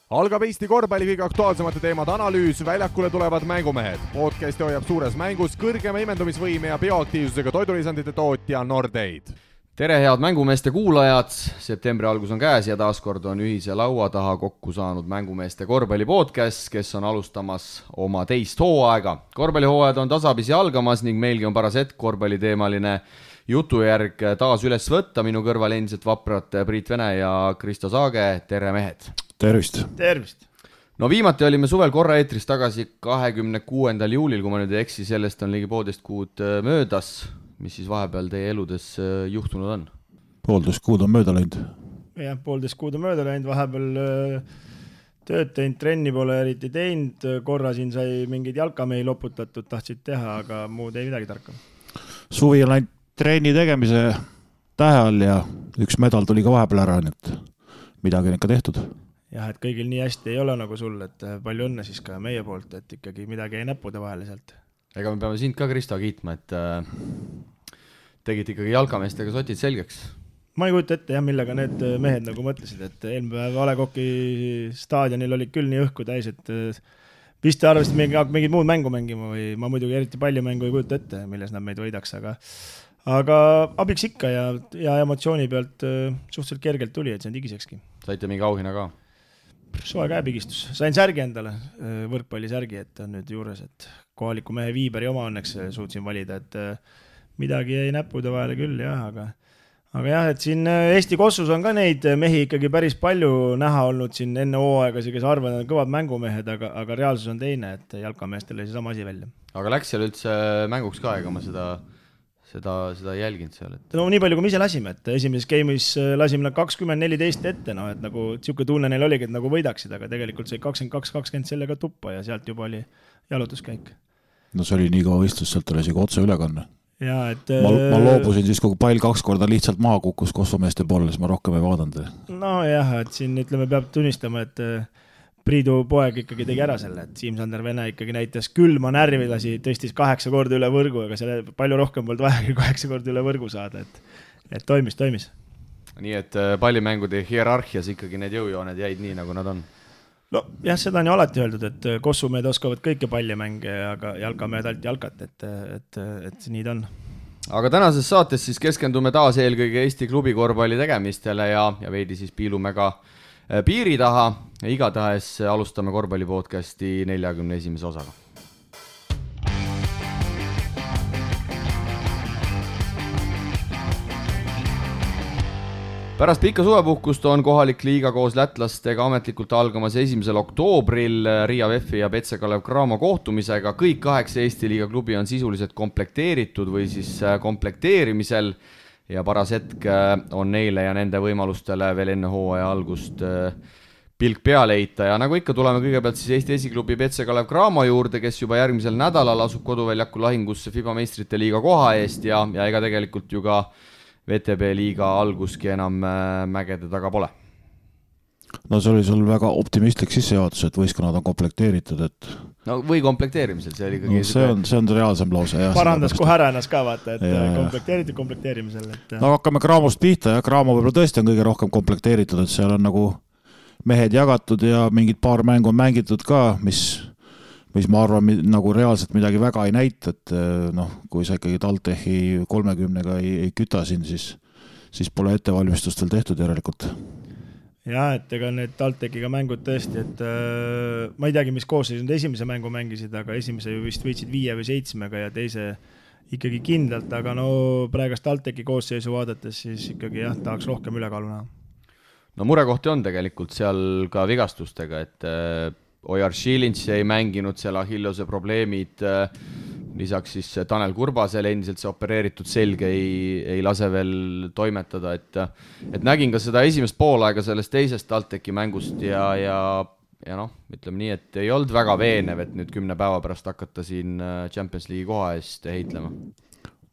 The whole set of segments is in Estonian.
Algab Eesti korvpalli kõige aktuaalsemate teemade analüüs, väljakule tulevad mängumehed. Podcasti hoiab suures mängus kõrgema imendumisvõime ja bioaktiivsusega toidulisandite tootja Nordeid. Tere head mängumeeste kuulajad, septembri algus on käes ja taaskord on ühise laua taha kokku saanud mängumeeste korvpalli podcast, kes on alustamas oma teist hooaega. Korvpallihooajad on tasapisi algamas ning meilgi on paras hetk korvpalliteemaline jutujärg taas üles võtta. Minu kõrval endiselt vaprad Priit Vene ja Kristo Saage, tere mehed! Tervist! Tervist! No viimati olime suvel korra eetris tagasi 26. juulil, kui ma nüüd ei eksi, sellest on ligi 1,5 kuud möödas. Mis siis vahepeal teie eludes juhtunud on? 1,5 kuud on mööda läinud. Jah, 1,5 kuud on mööda läinud, vahepeal tööd teinud, trenni pole eriti teinud, korra siin sai mingeid jalkamehi loputatud, tahtsid teha, aga muud ei midagi tarka. Suvi on läinud trenni tegemise tähe all ja üks medal tuli ka vahepeal ära, nii et midagi on ikka tehtud. Jah, et kõigil nii hästi ei ole nagu sul, et palju õnne siis ka meie poolt, et ikkagi midagi ei näppude vahele sealt. Ega me peame sind ka, Kristo, kiitma, et tegid ikkagi jalkameestega sotid selgeks. Ma ei kujuta ette, jah, millega need mehed nagu mõtlesid, et eelmine päev A. Le Coqi staadionil oli küll nii õhku täis, et vist arvasid mingid muud mängu mängima või ma muidugi eriti palju mängu ei kujuta ette, milles nad meid võidaks, aga abiks ikka ja emotsiooni pealt suhteliselt kergelt tuli, et see on digisekski. Saite mingi auhinna ka? Soe käepigistus. Sain särgi endale, võrkpallisärgi, et on nüüd juures, et kohaliku mehe Viiberi oma õnneks suutsin valida, et midagi jäi näppude vahele küll, jah, aga jah, et siin Eesti Kossus on ka neid mehi ikkagi päris palju näha olnud siin enne hooaegasi, kes arvavad, on kõvad mängumehed, aga reaalsus on teine, et jalkameestel oli sama asi välja. Aga läks seal üldse mänguks ka, ega ma seda jälginud seal? No nii palju, kui me ise lasime, et esimeses game'is lasime 20-14 ette, no, et nagu siuke tunne neil oligi, et nagu võidaksid, aga tegelikult sai 22-20 sellega tuppa ja sealt juba oli jalutuskäik. No see oli nii kaua istus, sealt oli isegi otse ülekanne. Ja, et, ma loobusin siis, kui pall 2 korda lihtsalt maha kukkus kossumeeste poole, siis ma rohkem ei vaadanud. No jah, et siin ütleme, peab tunnistama, et Priidu poeg ikkagi tegi ära selle, et Siim-Sander Vene ikkagi näitas külma närvilasi, tõstis 8 korda üle võrgu, aga selle palju rohkem polnud vaja 8 korda üle võrgu saada, et toimis. Nii et pallimängude hierarhias ikkagi need jõujooned jäid nii, nagu nad on? No jah, seda on ju alati öeldud, et kossumehed oskavad kõike pallimänge, aga jalkamehed alt jalkat, et nii ta on. Aga tänases saates siis keskendume taas eelkõige Eesti klubi korvpalli tegemistele ja veidi siis piilume ka piiri taha. Igatahes alustame korvpallipodcasti 41. osaga. Pärast pikka suvepuhkust on kohalik liiga koos lätlastega ametlikult algamas 1. oktoobril Riia VEF-i ja Petse Kalev Cramo kohtumisega. Kõik 8 Eesti liiga klubi on sisuliselt komplekteeritud või siis komplekteerimisel ja paras hetk on neile ja nende võimalustele veel enne hooaja algust pilk peale heita. Ja nagu ikka tuleme kõigepealt siis Eesti esiklubi Petse Kalev Cramo juurde, kes juba järgmisel nädalal asub koduväljaku lahingusse FIBA meistrite liiga koha eest ja ega tegelikult ju ka VTB liiga alguski enam mägede taga pole. No see oli sul väga optimistlik sissejuhatus, et võistkonnad on komplekteeritud, et no või komplekteerimisel, see oli ikkagi... No, see on reaalsem lause. Jah, parandas kohe ära ennast ka vaata, et komplekteerimisel. No hakkame Cramost pihta ja Cramo võib-olla tõesti on kõige rohkem komplekteeritud, et seal on nagu mehed jagatud ja mingid paar mängu on mängitud ka, mis ma arvan nagu reaalselt midagi väga ei näita, et kui sa ikkagi TalTechi 30-ga ei küta siin, siis pole ettevalmistust veel tehtud järelikult. Jah, et ega need TalTechiga mängud tõesti, et ma ei teagi, mis koosseis nüüd esimese mängu mängisid, aga esimese ju vist võitsid 5 või 7-ga ja teise ikkagi kindlalt, aga no praegast TalTechi koosseisu vaadates siis ikkagi jah, tahaks rohkem ülekaalu näha. No murekohti on tegelikult seal ka vigastustega, et Ojar Šilinš ei mänginud seal Achillose probleemid, lisaks siis Tanel Kurbasel endiselt see opereeritud selge ei lase veel toimetada, et nägin ka seda esimest poolaega sellest teisest TalTechi mängust ja noh, ütleme nii, et ei olnud väga veenev, et nüüd 10 päeva pärast hakata siin Champions League koha eest heitlema.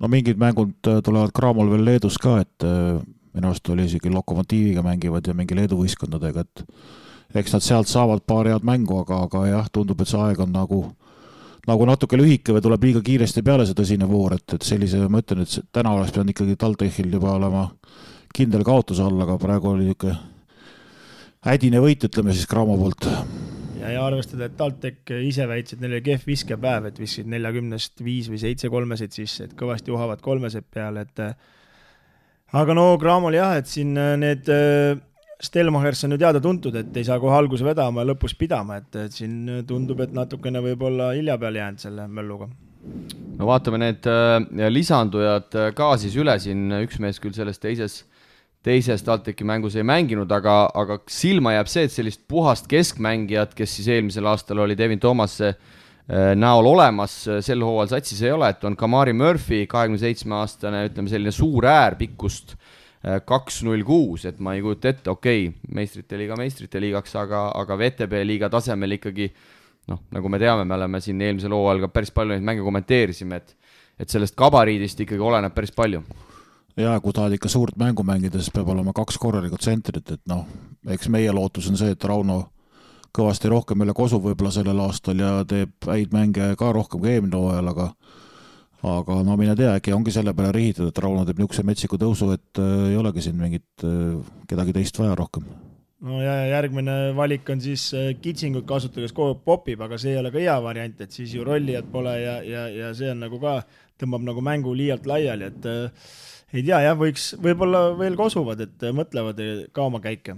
No mingid mängud tulevad Cramol veel Leedus ka, et minu arust oli isegi Lokomotiiviga mängivad ja mingi Leedu võistkondadega, et eks nad sealt saavad paar head mängu, aga jah, tundub, et see aeg on nagu natuke lühike või tuleb liiga kiiresti peale see tõsine voor, et sellise, ma ütlen, et täna oleks pidanud ikkagi TalTechil juba olema kindel kaotus all, aga praegu oli niisugune hädine võit, ütleme siis Cramo poolt. Ja arvestada, et TalTech ise väitsid, neil oli kehv viskepäev, et viskasid 40-st 5 või 7 kolmesid sisse, et kõvasti uhavad kolmesed peale, et aga no Cramol jah, et siin need Stelmachers on ju teada tuntud, et ei saa kohe alguse vedama ja lõpus pidama, et siin tundub, et natukene võib-olla hilja peale jäänud selle mölluga. No vaatame need lisandujad ka siis üle siin, üks mees küll selles teises TalTechi mängus ei mänginud, aga silma jääb see, et sellist puhast keskmängijat, kes siis eelmisel aastal oli Devin Thomasse näol olemas, sel hooajal satsis ei ole, et on Kamari Murphy, 27-aastane, ütleme selline suur äär pikkust 2.06, et ma ei kujuta ette, okei, meistrite liigaks, aga VTB liiga tasemel ikkagi, noh, nagu me teame, me oleme siin eelmisel hooajal ka päris palju neid mänge kommenteerisime, et sellest gabariidist ikkagi oleneb päris palju. Ja kui tahad ikka suurt mängu mängida, siis peab olema 2 korralikut tsentrit, et noh, eks meie lootus on see, et Rauno kõvasti rohkem üle kosub võib-olla sellel aastal ja teeb häid mänge ka rohkem kui eelmine hooajal, aga no mine tea, äkki ongi selle peale rihitud, et Rauno teeb niisuguse metsiku tõusu, et ei olegi siin mingit kedagi teist vaja rohkem. No ja järgmine valik on siis kitsingut kasutada, kes kogu popib, aga see ei ole ka hea variant, et siis ju rollijad pole ja see on nagu ka, tõmbab nagu mängu liialt laiali, et ei tea, jah, võib-olla veel kosuvad, et mõtlevad ka oma käike.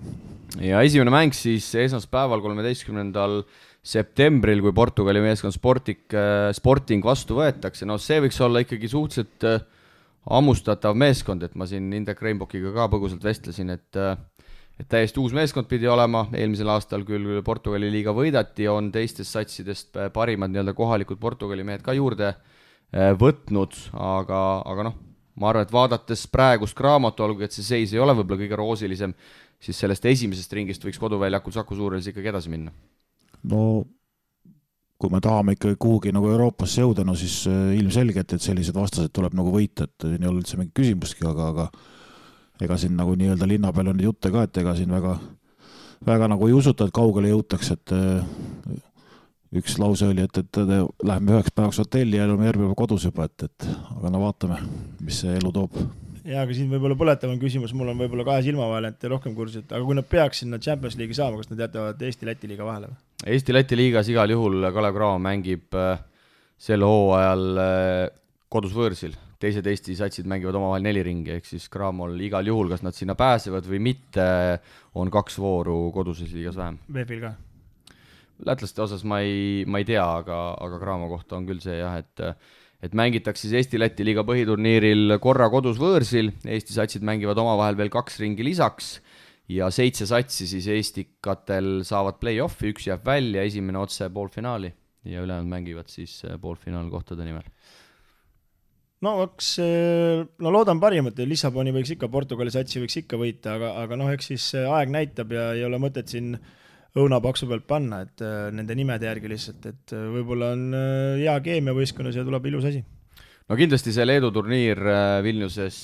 Ja esimene mäng siis esmaspäeval 13. septembril, kui Portugali meeskond Sporting vastu võetakse. No see võiks olla ikkagi suhteliselt ammustatav meeskond, et ma siin Indrek Reinbokiga ka põgusalt vestlesin, et täiesti uus meeskond pidi olema. Eelmisel aastal küll Portugali liiga võidati, on teistest satsidest parimad nii-öelda kohalikud Portugali mehed ka juurde võtnud, aga noh, ma arvan, et vaadates praegust Cramot, olgu, et see seis ei ole võib-olla kõige roosilisem, siis sellest esimesest ringist võiks koduväljakul Saku Suurhallis ikkagi edasi minna. No kui me tahame ikka kuhugi nagu Euroopasse jõuda, no siis ilmselgelt, et sellised vastased tuleb nagu võita, et ei ole üldse mingi küsimustki, aga ega siin nagu nii-öelda linna peal on jutte ka, et ega siin väga nagu ei usuta, et kaugele jõutaks, et üks lause oli, et läheme 9 päevaks hotelli ja oleme järgmine päeva kodus juba, aga no vaatame, mis see elu toob. Ja, aga siin võib-olla põletavam küsimus, mul on võib-olla 2 silma vahel, et rohkem kursid, aga kui nad peaks sinna Champions League'i saama, kas nad jätavad Eesti-Läti liiga vahele? Eesti-Läti liigas igal juhul Kalev Cramo mängib sel hooajal kodus võõrsil. Teised Eesti satsid mängivad omavahel 4 ringi, ehk siis Cramol igal juhul, kas nad sinna pääsevad või mitte, on 2 vooru koduses liigas vähem. VF-il ka? Lätlaste osas ma ei tea, aga Cramo kohta on küll see jah, et mängitakse siis Eesti-Läti liiga põhiturniiril korra kodus võõrsil, Eesti satsid mängivad omavahel veel 2 ringi lisaks ja 7 satsi siis Eestikatel saavad play-offi, 1 jääb välja, esimene otse poolfinaali ja ülejäänud mängivad siis poolfinaalkohtade nimel. No loodan parimat, Lissaboni võiks ikka, Portugali satsi võiks ikka võita, aga noh, eks siis aeg näitab ja ei ole mõtet siin õunapaksu pealt panna, et nende nimede järgi lihtsalt, et võib-olla on hea keemia võistkonnas ja tuleb ilus asi. No kindlasti see Leedu turniir Vilniuses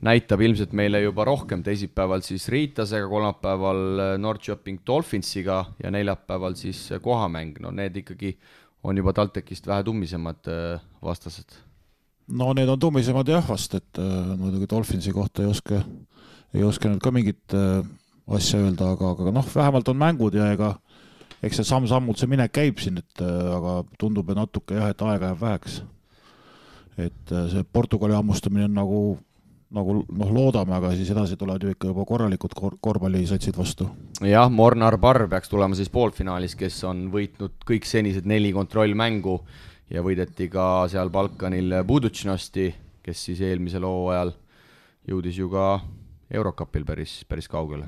näitab ilmselt meile juba rohkem, teisipäeval siis Riitasega, kolmapäeval Norrköping Dolphinsiga ja neljapäeval siis kohamäng. No need ikkagi on juba TalTechist vähe tummisemad vastased. No need on tummisemad jah vast, et muidugi Dolphinsi kohta ei oska nüüd ka mingit asja öelda, aga noh, vähemalt on mängud ja eks see samm-sammult see minek käib siin, aga tundub, et natuke jah, et aega jääb väheks. Et see Portugali ammustamine on nagu loodame, aga siis edasi tulevad ju ikka juba korralikud korvpallisatsid vastu. Jah, Mornar Barr peaks tulema siis poolfinaalis, kes on võitnud kõik senised 4 kontrollmängu ja võideti ka seal Balkanil Budućnosti, kes siis eelmisel hooajal jõudis ju ka Eurocupil päris kaugele.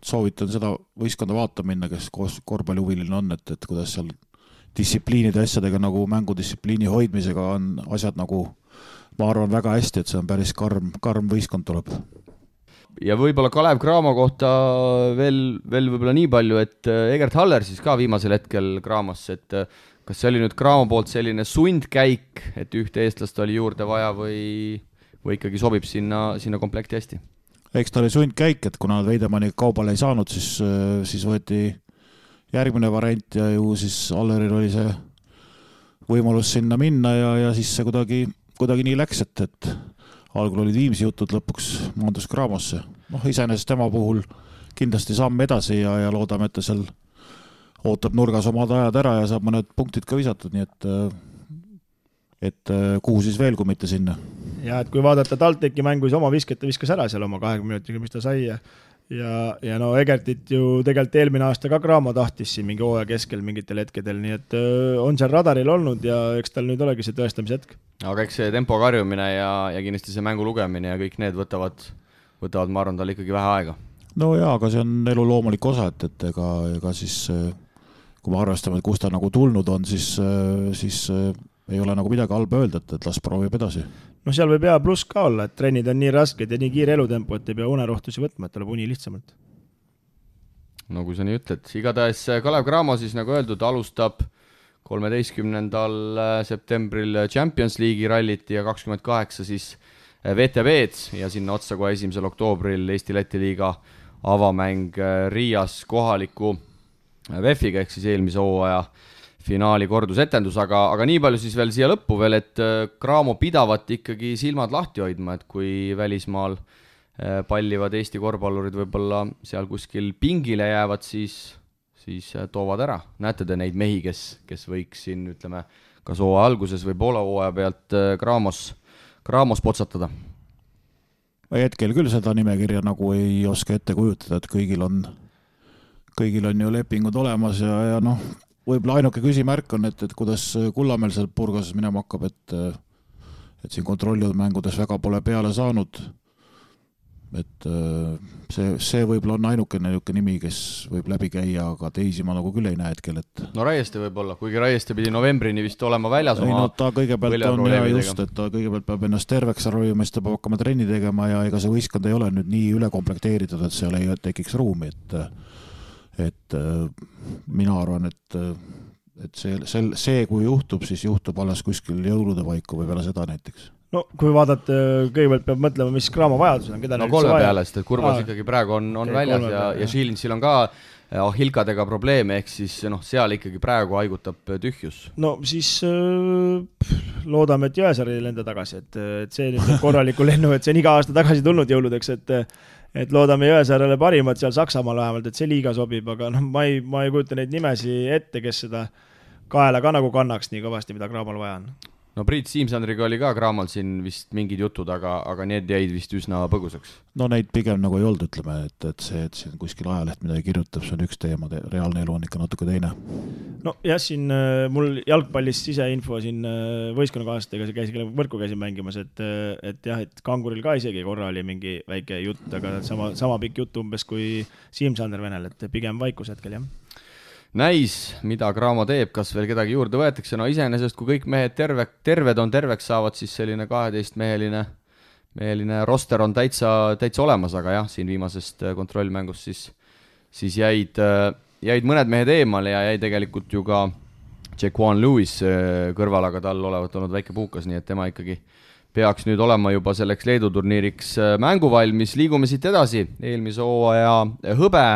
Soovitan seda võistkonda vaata minna, kes korvpallihuviline on, et kuidas seal distsipliinide asjadega nagu mängudistsipliini hoidmisega on asjad nagu, ma arvan, väga hästi, et see on päris karm võistkond tuleb. Ja võib-olla Kalev Cramo kohta veel võib-olla nii palju, et Egert Haller siis ka viimasel hetkel Cramosse, et kas see oli nüüd Cramo poolt selline sundkäik, et ühte eestlast oli juurde vaja või ikkagi sobib sinna komplekti hästi? Eks ta oli sundkäik, et kuna Veidemanni kaubale ei saanud, siis võeti järgmine variant ja ju siis Alleril oli see võimalus sinna minna ja siis see kuidagi nii läks, et algul olid Viimsi jutud, lõpuks maandus Cramosse. Noh, iseenesest tema puhul kindlasti samm edasi ja loodame, et ta seal ootab nurgas omad ajad ära ja saab mõned punktid ka visatud, nii et kuhu siis veel, kui mitte sinna. Ja et kui vaadata TalTechi mängu, siis oma viskas ära seal oma 20 minutiga, mis ta sai ja no Egertit ju tegelikult eelmine aasta ka Cramo tahtis siin mingi hooaja keskel mingitel hetkedel, nii et on seal radaril olnud ja eks tal nüüd olegi see tõestamise hetk. Aga eks see tempo karjumine ja kindlasti see mängu lugemine ja kõik need võtavad, ma arvan, tal ikkagi vähe aega. No jaa, aga see on elu loomulik osa, et ega siis kui me arvestame, et kus ta nagu tulnud on, siis ei ole nagu midagi halba öelda, et las proovib edasi. No seal võib hea pluss ka olla, et trennid on nii rasked ja nii kiire elutempo, et ei pea unerohtusi võtma, et tuleb uni lihtsamalt. No kui sa nii ütled, igatahes Kalev Cramo siis nagu öeldud alustab 13. septembril Champions League'i rallit ja 28 siis VTB-d ja sinna otsa kohe 1. oktoobril Eesti-Läti liiga avamäng Riias kohaliku VEF-iga ehk siis eelmise hooaja finaali kordusetendus, aga nii palju siis veel siia lõppu veel, et Cramo pidavat ikkagi silmad lahti hoidma, et kui välismaal pallivad Eesti korvpallurid võib-olla seal kuskil pingile jäävad, siis toovad ära. Näete te neid mehi, kes võiks siin, ütleme, kas hooaja alguses või poole hooaja pealt Cramos potsatada? Hetkel küll seda nimekirja nagu ei oska ette kujutada, et kõigil on ju lepingud olemas ja noh, võib-olla ainuke küsimärk on, et kuidas Kullamäel seal Purgases minema hakkab, et siin kontrollitud mängudes väga pole peale saanud. Et see võib-olla on ainuke nimi, kes võib läbi käia, aga teisi ma nagu küll ei näe hetkel. No Raieste võib-olla, kuigi Raieste pidi novembrini vist olema väljas oma ta kõigepealt on ja just, et ta kõigepealt peab ennast terveks ravima, siis ta peab hakkama trenni tegema ja ega see võistkond ei ole nüüd nii ülekomplekteeritud, et seal ei tekiks ruumi, et mina arvan, et see kui juhtub, siis juhtub alles kuskil jõulude paiku või peale seda näiteks. No kui vaadata, kõigepealt peab mõtlema, mis Cramo vajadus on. No kolme peale, sest et Kurvas ikkagi praegu on väljas ja Šilinsil on ka Ahilkadega probleeme, ehk siis seal ikkagi praegu haigutab tühjus. No siis loodame, et Jõesaar ei lenda tagasi, et see nüüd korraliku lennu, et see on iga aasta tagasi tulnud jõuludeks, et loodame Jõesaarele parimat seal Saksamaal vähemalt, et see liiga sobib, aga ma ei kujuta neid nimesi ette, kes seda kaela ka nagu kannaks nii kõvasti, mida Cramol vaja on. No Priit Siimsandriga oli ka Cramol siin vist mingid jutud, aga need jäid vist üsna põgusaks. No neid pigem nagu ei olnud, ütleme, et see, et siin kuskil ajaleht midagi kirjutab, see on üks teema, reaalne elu on ikka natuke teine. No jah, siin mul jalgpallist siseinfo siin võistkonnakaaslastega käisin võrku käisin mängimas, et jah, et Kanguril ka isegi korra oli mingi väike jutt, aga sama pikk jutt umbes kui Siimsander Venel, et pigem vaikus hetkel, jah. Näis, mida Cramo teeb, kas veel kedagi juurde võetakse, no iseenesest, kui kõik mehed terved on terveks saavad, siis selline 12-meheline roster on täitsa olemas, aga jah, siin viimasest kontrollmängust siis jäid mõned mehed eemale ja jäi tegelikult ju ka Jaquan Lewis kõrval, aga tal olevat olnud väike puukas, nii et tema ikkagi peaks nüüd olema juba selleks Leedu turniiriks mänguvalmis. Liigume siit edasi, eelmise hooaja hõbe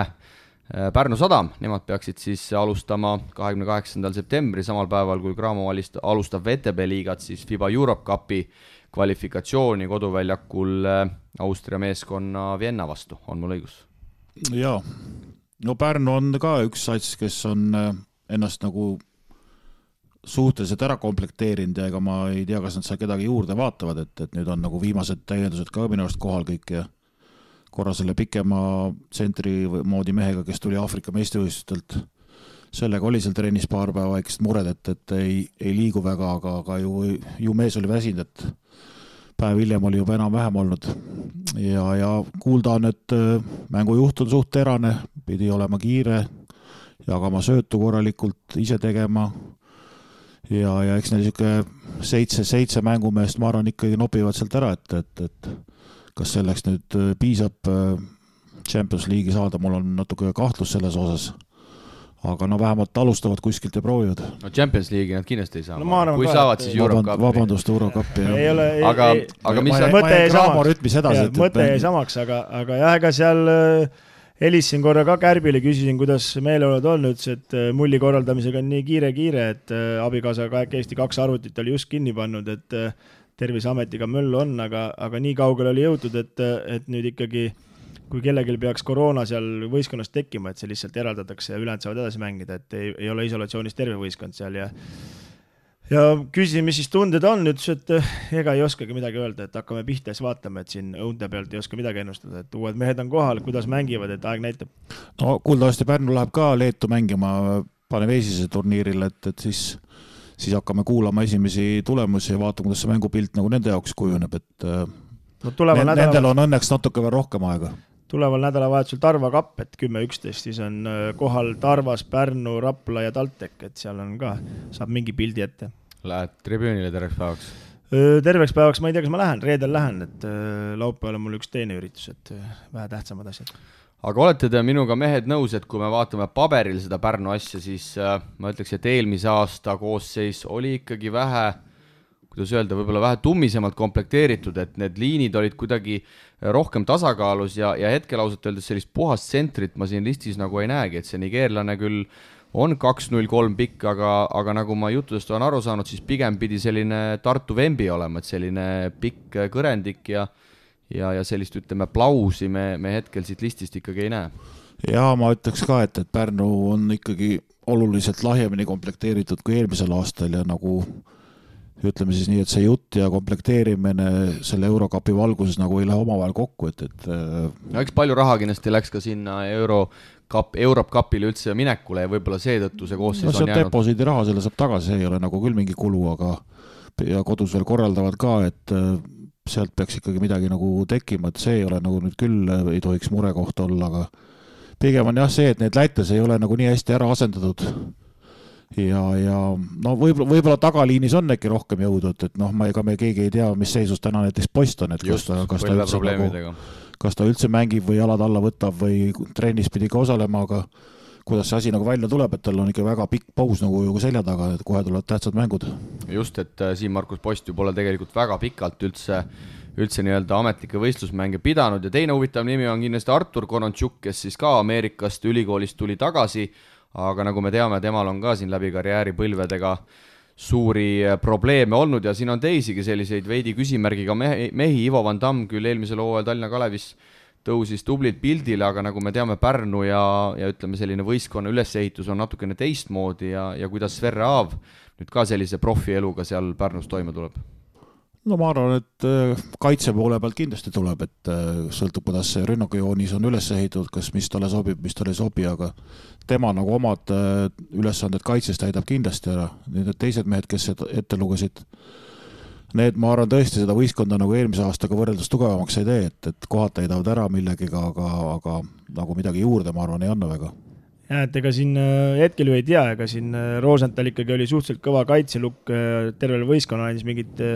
Pärnu Sadam, nemad peaksid siis alustama 28. septembri, samal päeval kui Cramo alustab VTB liigat, siis FIBA Europe Cupi kvalifikatsiooni koduväljakul Austria meeskonna Vienna vastu, on mul õigus? Jaa, no Pärnu on ka üks sats, kes on ennast nagu suhteliselt ära komplekteerinud ja ega ma ei tea, kas nad seal kedagi juurde vaatavad, et nüüd on nagu viimased täiendused ka minu arust kohal kõik ja korra selle pikema tsentri moodi mehega, kes tuli Aafrika meistrivõistlustelt. Sellega oli seal trennis paar päeva väikest mured, et ei liigu väga, aga ju mees oli väsinud, et päev hiljem oli juba enam-vähem olnud. Ja kuulda on, et mängujuht on suht terane, pidi olema kiire, jagama söötu korralikult, ise tegema. Ja eks neil seitse mängumeest, ma arvan, ikkagi nopivad sealt ära, et kas selleks nüüd piisab Champions League'i saada, mul on natuke kahtlus selles osas. Aga vähemalt alustavad kuskilt ja proovivad. No Champions League'i nad kindlasti ei saa. No, kui saavad, siis Europe Cup. Vabandust, Europe Cup. Aga mis mõte jäi samaks, aga jah, ega seal helisin korra ka Kärbile, küsisin, kuidas meeleolud on, ütles, et mulli korraldamisega on nii kiire, et abikaasaga Eesti 2 arvutit oli just kinni pannud, et Terviseametiga möll on, aga nii kaugel oli jõutud, et nüüd ikkagi kui kellelgi peaks koroona seal võistkonnas tekkima, et see lihtsalt eraldatakse ja ülejäänud saavad edasi mängida, et ei ole isolatsioonis terve võistkond seal ja küsisin, mis siis tunded on, ütles, et ega ei oskagi midagi öelda, et hakkame pihta ja siis vaatame, et siin õunte pealt ei oska midagi ennustada, et uued mehed on kohal, kuidas mängivad, et aeg näitab. No kuuldavasti Pärnu läheb ka Leetu mängima Paneveesise turniiril, et siis hakkame kuulama esimesi tulemusi ja vaatame, kuidas see mängupilt nagu nende jaoks kujuneb, et nendel on õnneks natuke veel rohkem aega. Tuleval nädalavahetusel Tarva kapp, et 10-11, siis on kohal Tarvas, Pärnu, Rapla ja Taltek, et seal on ka, saab mingi pildi ette. Lähed tribüünile terveks päevaks? Terveks päevaks ma ei tea, kas ma lähen, reedel lähen, et laupäeval on mul üks teine üritus, et vähe tähtsamad asjad. Aga olete te minuga mehed nõus, et kui me vaatame paberil seda Pärnu asja, siis ma ütleks, et eelmise aasta koosseis oli ikkagi vähe, kuidas öelda, võib-olla vähe tummisemalt komplekteeritud, et need liinid olid kuidagi rohkem tasakaalus ja hetkel ausalt öeldes sellist puhast tsentrit ma siin listis nagu ei näegi, et see nigeerlane küll on 2-0-3 pikk, aga nagu ma juttudest olen aru saanud, siis pigem pidi selline Tartu Vembi olema, et selline pikk kõrendik ja sellist, ütleme, plausi me hetkel siit listist ikkagi ei näe. Ja ma ütleks ka, et Pärnu on ikkagi oluliselt lahjemini komplekteeritud kui eelmisel aastal ja nagu ütleme siis nii, et see jutt ja komplekteerimine selle Eurokapi valguses nagu ei lähe omavahel kokku, et no eks palju raha kindlasti läks ka sinna Eurokapile üldse minekule ja võib-olla seetõttu see koosseis on jäänud. Deposiidi raha selle saab tagasi, see ei ole nagu küll mingi kulu, aga ja kodus veel korraldavad ka, et sealt peaks ikkagi midagi nagu tekkima, et see ei ole nagu nüüd küll ei tohiks murekoht olla, aga pigem on jah see, et need lätes ei ole nagu nii hästi ära asendatud. Ja no võib-olla tagaliinis on äkki rohkem jõudu, et noh, ega me keegi ei tea, mis seisus täna näiteks post on, et kas ta üldse mängib või jalad alla võtab või trennis pidi ka osalema, aga kuidas see asi nagu välja tuleb, et tal on ikka väga pikk paus nagu selja taga, et kohe tulevad tähtsad mängud. Just, et siin Markus Post ju pole tegelikult väga pikalt üldse nii-öelda ametlikke võistlusmänge pidanud ja teine huvitav nimi on kindlasti Artur Konontšuk, kes siis ka Ameerikast ülikoolist tuli tagasi, aga nagu me teame, temal on ka siin läbi karjääri põlvedega suuri probleeme olnud ja siin on teisigi selliseid veidi küsimärgiga mehi. Ivo Van Damm küll eelmisel hooajal Tallinna Kalevis tõusis tublilt pildile, aga nagu me teame, Pärnu ja ütleme selline võistkonna ülesehitus on natukene teistmoodi ja kuidas Sverre Aav nüüd ka sellise profieluga seal Pärnus toime tuleb? No ma arvan, et kaitse poole pealt kindlasti tuleb, et sõltub, kuidas see rünnakujoonis on üles ehitatud, kas mis talle sobib, mis talle ei sobi, aga tema nagu omad ülesanded kaitses täidab kindlasti ära. Need teised mehed, kes ette lugesid, need ma arvan tõesti seda võistkonda nagu eelmise aastaga võrreldes tugevamaks ei tee, et kohad täidavad ära millegiga, aga nagu midagi juurde ma arvan ei anna väga. Ja, et ega siin hetkel ju ei tea, ega siin Rosenthal ikkagi oli suhteliselt kõva kaitselukk, tervel võistkonna andis mingit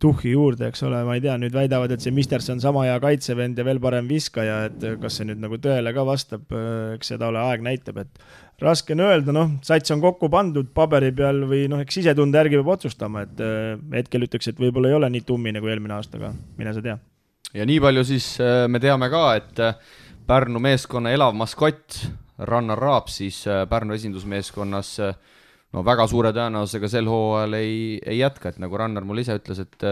tuhhi juurde, eks ole, ma ei tea, nüüd väidavad, et see Misterson sama hea kaitsevend ja veel parem viskaja, et kas see nüüd nagu tõele ka vastab, eks seda ole aeg näitab, et raske on öelda, noh, sats on kokku pandud paberi peal või noh, eks sisetunde järgi peab otsustama, et hetkel ütleks, et võib-olla ei ole nii tummine kui eelmine aastaga, mine sa tea. Ja nii palju siis me teame ka, et Pärnu meeskonna elav maskott Rannar Raab siis Pärnu esindusmeeskonnas no väga suure tõenäosusega sel hooajal ei jätka, et nagu Rannar mul ise ütles, et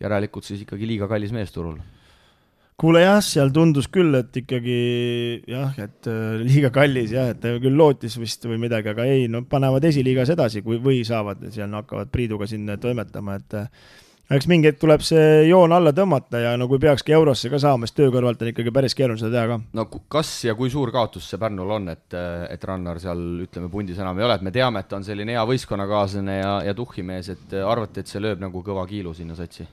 järelikult siis ikkagi liiga kallis mees turul. Kuule jah, seal tundus küll, et ikkagi jah, et liiga kallis jah, et küll lootis vist või midagi, aga ei, no panevad esiliigas edasi või saavad, seal hakkavad Priiduga siin toimetama, et eks mingi hetk tuleb see joon alla tõmmata ja no kui peakski eurosse ka saama, siis töö kõrvalt on ikkagi päris keeruline seda teha ka. No kas ja kui suur kaotus see Pärnul on, et Rannar seal, ütleme, pundis enam ei ole, et me teame, et ta on selline hea võistkonnakaaslane ja tuhhimees, et arvate, et see lööb nagu kõva kiilu sinna satsi?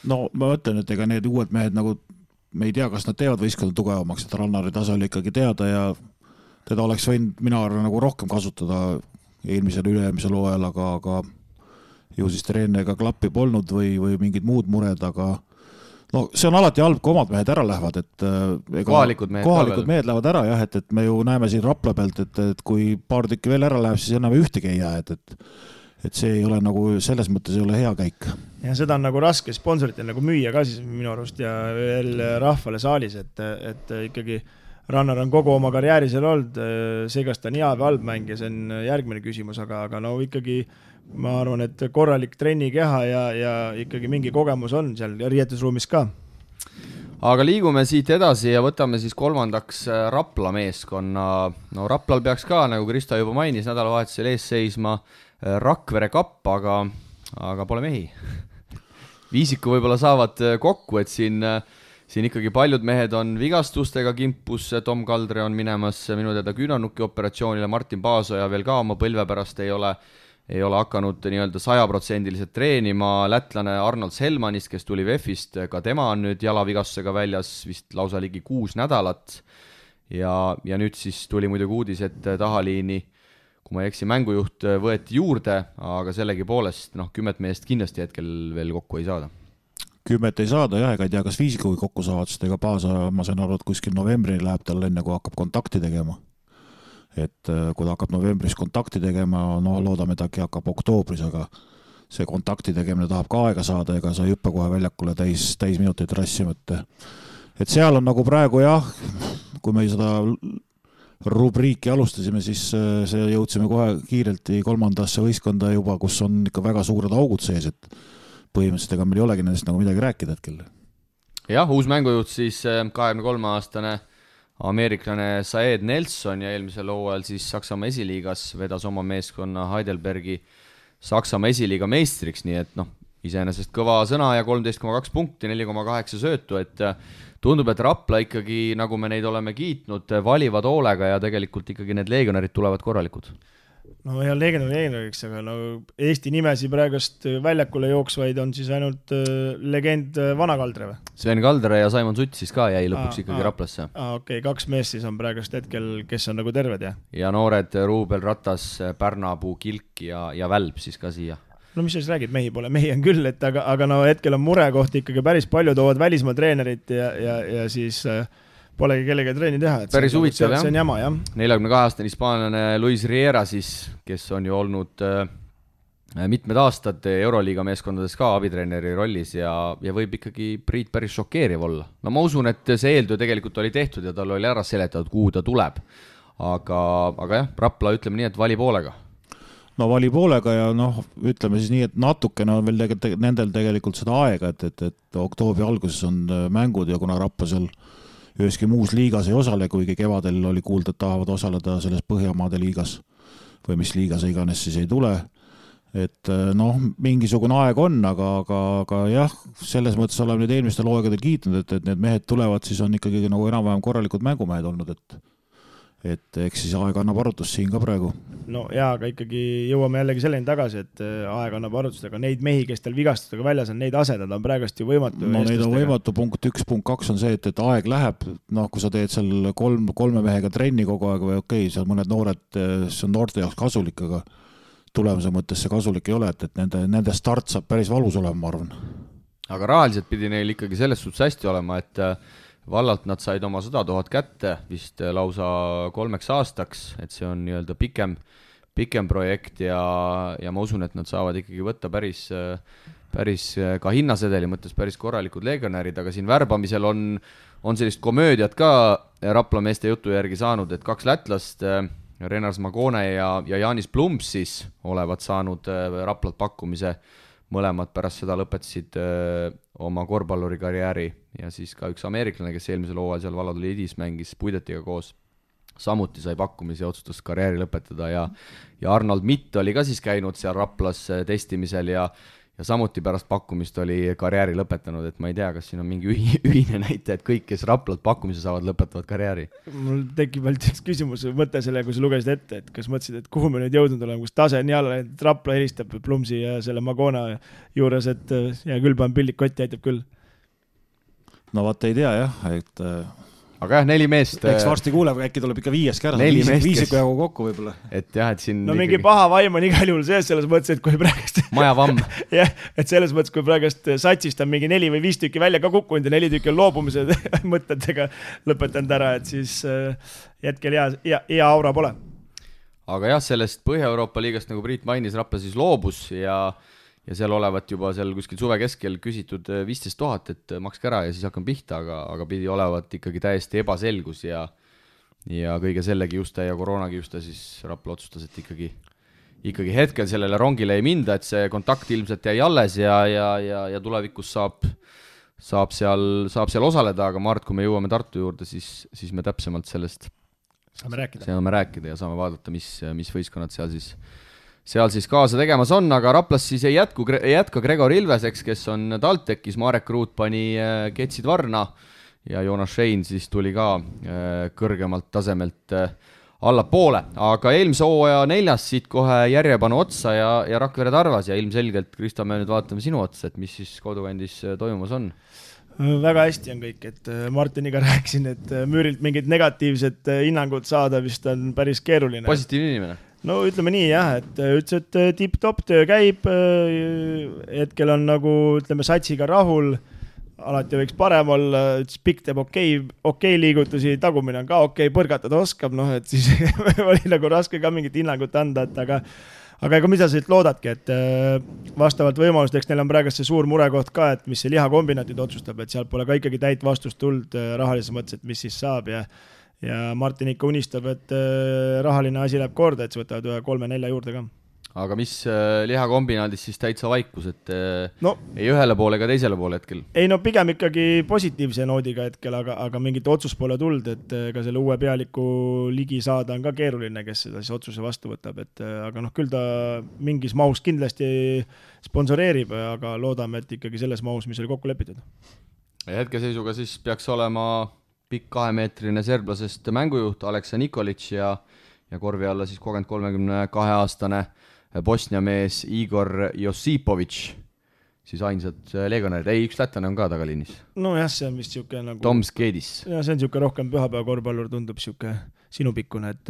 No ma mõtlen, et ega need uued mehed nagu, me ei tea, kas nad teevad võistkonna tugevamaks, et Rannari tase oli ikkagi teada ja teda oleks võinud mina arvan nagu rohkem kasutada eelmisel üle-eelmisel hooajal, aga ju siis treeneriga klappi polnud või mingid muud mured, aga no see on alati halb, kui omad mehed ära lähevad, et kohalikud mehed lähevad ära jah, et me ju näeme siin Rapla pealt, et kui paar tükki veel ära läheb, siis enam ühtegi ei jää, et see ei ole nagu, selles mõttes ei ole hea käik. Ja seda on nagu raske sponsoritel nagu müüa ka siis minu arust ja veel rahvale saalis, et ikkagi Rannar on kogu oma karjääri seal olnud, see kas ta on hea või halb mäng ja see on järgmine küsimus, aga no ikkagi ma arvan, et korralik trennikeha ja ikkagi mingi kogemus on seal riietusruumis ka. aga liigume siit edasi ja võtame siis kolmandaks Rapla meeskonna. No Raplal peaks ka, nagu Kristo juba mainis, nädalavahetusel ees seisma Rakvere Kapp, aga pole mehi. Viisiku võib-olla saavad kokku, et siin ikkagi paljud mehed on vigastustega kimpus, Tom Kaldre on minemas minu teada küünarnuki operatsioonile, Martin Paasoja veel ka oma põlve pärast ei ole hakanud nii-öelda 100% treenima, lätlane Arnold Selmanist, kes tuli VEF-ist, ka tema on nüüd jalavigastusega väljas vist lausa ligi 6 nädalat ja nüüd siis tuli muidugi uudis, et tahaliini, kui ma ei eksi, mängujuht võeti juurde, aga sellegi poolest 10 meest kindlasti hetkel veel kokku ei saada. 10 ei saada jah, ega ei tea, kas Viisikugi kokku saavad, sest ega Paasa, ma sain aru, et kuskil novembrini läheb tal enne, kui hakkab kontakti tegema. Et kui ta hakkab novembris kontakti tegema, loodame, et äkki hakkab oktoobris, aga see kontakti tegemine tahab ka aega saada, ega sa ei hüppe kohe väljakule täis minuteid rassima. Et seal on nagu praegu jah, kui me seda rubriiki alustasime, siis see jõudsime kohe kiirelt kolmandasse võistkonda juba, kus on ikka väga suured augud sees, et põhimõtteliselt ega meil ei olegi nendest nagu midagi rääkida hetkel. Jah, uus mängujuht siis 23-aastane ameeriklane Saed Nelson ja eelmisel hooajal siis Saksamaa esiliigas vedas oma meeskonna Heidelbergi Saksamaa esiliiga meistriks, nii et iseenesest kõva sõna ja 13,2 punkti, 4,8 söötu, et tundub, et Rapla ikkagi, nagu me neid oleme kiitnud, valivad hoolega ja tegelikult ikkagi need legionärid tulevad korralikud. No ja legionäriks, aga Eesti nimesi praegust väljakule jooksvaid on siis ainult legend Vana Kaldre või? Sven Kaldre ja Simon Sutt siis ka jäi lõpuks ikkagi Raplasse. Okei, 2 meest siis on praegust hetkel, kes on nagu terved, jah? Ja noored Ruubel Ratas, Pärnapuu, Kilk ja Välb siis ka siia. No mis sa räägid, mehi pole, mehi on küll, et aga hetkel on murekohti ikkagi päris palju, toovad välismaa treenerit ja siis polegi kellega treeni teha. Päris huvitav, jah. See on jama, jah. 42-aastane hispaanlane Luis Riera siis, kes on ju olnud mitmed aastad Euroliiga meeskondades ka abitreeneri rollis ja võib ikkagi Priit päris šokeeriv olla. No ma usun, et see eeltöö tegelikult oli tehtud ja tal oli ära seletatud, kuhu ta tuleb. Aga jah, Rapla ütleme nii, et vali poolega. No vali poolega ja ütleme siis nii, et natukene on veel nendel tegelikult seda aega, et oktoobri alguses on mängud ja kuna Rapla seal üheski muus liigas ei osale, kuigi kevadel oli kuulda, et tahavad osaleda selles Põhjamaade liigas või mis liigas iganes siis ei tule. Et mingisugune aeg on, aga jah, selles mõttes oleme nüüd eelmistel hooaegadel kiitnud, et need mehed tulevad, siis on ikkagi nagu enam-vähem korralikud mängumehed olnud, et eks siis aeg annab arutust siin ka praegu. No jaa, aga ikkagi jõuame jällegi selleni tagasi, et aeg annab arutust, aga neid mehi, kes teil vigastustega väljas on, neid asedada on praegust ju võimatu. No neid on võimatu, punkt 1, punkt 2 on see, et aeg läheb, kui sa teed seal kolme mehega trenni kogu aeg või okei, seal mõned noored, see on noorte jaoks kasulik, aga tulemuse mõttes see kasulik ei ole, et nende start saab päris valus olema, ma arvan. Aga rahaliselt pidi neil ikkagi selles suhtes hästi olema, et vallalt nad said oma 100 000 kätte vist lausa 3 aastaks, et see on nii-öelda pikem projekt ja ma usun, et nad saavad ikkagi võtta päris ka hinnasedeli mõttes päris korralikud legionärid, aga siin värbamisel on sellist komöödiat ka Rapla meeste jutu järgi saanud, et 2 lätlast, Renars Magone ja Jaanis Plumps siis olevat saanud Raplalt pakkumise, mõlemad pärast seda lõpetasid oma korvpalluri karjääri ja siis ka üks ameeriklane, kes eelmisel hooajal seal Valladolid Edis mängis Puidetiga koos, samuti sai pakkumisi ja otsustas karjääri lõpetada ja Arnold Mitt oli ka siis käinud seal Raplas testimisel ja samuti pärast pakkumist oli karjääri lõpetanud, et ma ei tea, kas siin on mingi ühine näite, et kõik, kes Raplalt pakkumise saavad, lõpetavad karjääri. Mul tekib veel üks küsimus, mõte selle, kui sa lugesid ette, et kas mõtlesid, et kuhu me nüüd jõudnud oleme, kus tase on jälle, et Rapla helistab Plumsi ja selle Magona juures, et ja küll panen pillik kotti, aitab küll. No vaat ei tea jah, et aga jah, 4 meest. Eks varsti kuuleb, äkki tuleb ikka 5 kära, 5 jagu kokku võib-olla. Et jah, et siin no mingi paha vaim on igal juhul sees selles mõttes, et kui praegust majavamm. jah, et selles mõttes, kui praegust satsist on mingi 4 või 5 tükki välja ka kukkunud ja 4 tükki on loobumise mõtetega lõpetanud ära, et siis hetkel hea aura pole. Aga jah, sellest Põhja-Euroopa liigast, nagu Priit mainis, Rapla siis loobus ja seal olevat juba seal kuskil suve keskel küsitud 15 000, et makske ära ja siis hakkame pihta, aga pidi olevat ikkagi täiesti ebaselgus ja kõige selle kiuste ja koroona kiuste siis Rapla otsustas, et ikkagi hetkel sellele rongile ei minda, et see kontakt ilmselt jäi alles ja tulevikus saab seal osaleda, aga Mart, kui me jõuame Tartu juurde, siis me täpsemalt sellest saame rääkida ja saame vaadata, mis võistkonnad seal siis kaasa tegemas on, aga Raplas siis ei jätka Gregor Ilveseks, kes on TalTechis, Marek Ruut pani ketsid varna ja Joonas Schein siis tuli ka kõrgemalt tasemelt allapoole, aga eelmise hooaja 4. siit kohe järjepanu otsa ja Rakvere Tarvas ja ilmselgelt, Kristo, me nüüd vaatame sinu otsa, et mis siis kodukandis toimumas on? Väga hästi on kõik, et Martiniga rääkisin, et Müürilt mingid negatiivsed hinnangud saada vist on päris keeruline. Positiivne inimene? No ütleme nii jah, et ütles, et tipp-top töö käib, hetkel on nagu ütleme satsiga rahul, alati võiks parem olla, pikk teeb okei liigutusi, tagumine on ka okei, põrgatada oskab, et siis oli nagu raske ka mingit hinnangut anda, et aga ega mida sa siit loodadki, et vastavalt võimalusteks neil on praegu see suur murekoht ka, et mis see lihakombinaatid otsustab, et seal pole ka ikkagi täit vastust tuld rahalises mõttes, et mis siis saab ja Martin ikka unistab, et rahaline asi läheb korda, et see võtavad 3-4 juurde ka. Aga mis lihakombinaadis siis täitsa vaikus, et ei ühele poole ega teisele poole hetkel? Ei pigem ikkagi positiivse noodiga hetkel, aga mingit otsus pole tuld, et ka selle uue pealiku ligi saada on ka keeruline, kes seda siis otsuse vastu võtab, aga küll ta mingis mahus kindlasti sponsoreerib, aga loodame, et ikkagi selles mahus, mis oli kokku lepitud. Ja hetkeseisuga siis peaks olema pikk 2-meetrine serblasest mängujuht Aleksa Nikolic ja korvi alla siis 32-aastane Bosnia mees Igor Josipovic, siis ainsad legionärid. Ei, üks lätlane on ka tagaliinis. Jah, see on vist siuke nagu... Tom Skedis. Ja see on siuke rohkem pühapäeva korvpallur, tundub siuke sinupikkune, et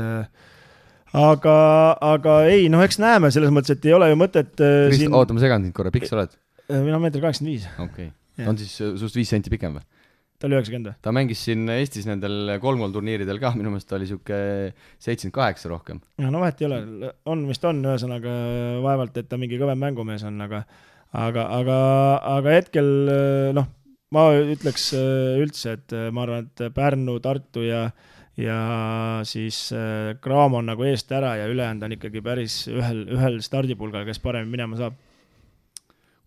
aga ei, eks näeme selles mõttes, et ei ole ju mõtet Oota, ma segan sind korra, pikk sa oled? Mina 1,85 m. Okei. On siis sust 5 senti pikem või? Ta oli 90. Ta mängis siin Eestis nendel 3 turniiridel ka, minu meelest ta oli siuke 78 rohkem. Ja vahet ei ole, vist on ühesõnaga vaevalt, et ta mingi kõvem mängumees on, aga hetkel, ma ütleks üldse, et ma arvan, et Pärnu, Tartu ja siis Graamo on nagu eest ära ja ülejäänud on ikkagi päris ühel stardipulgal, kes parem minema saab.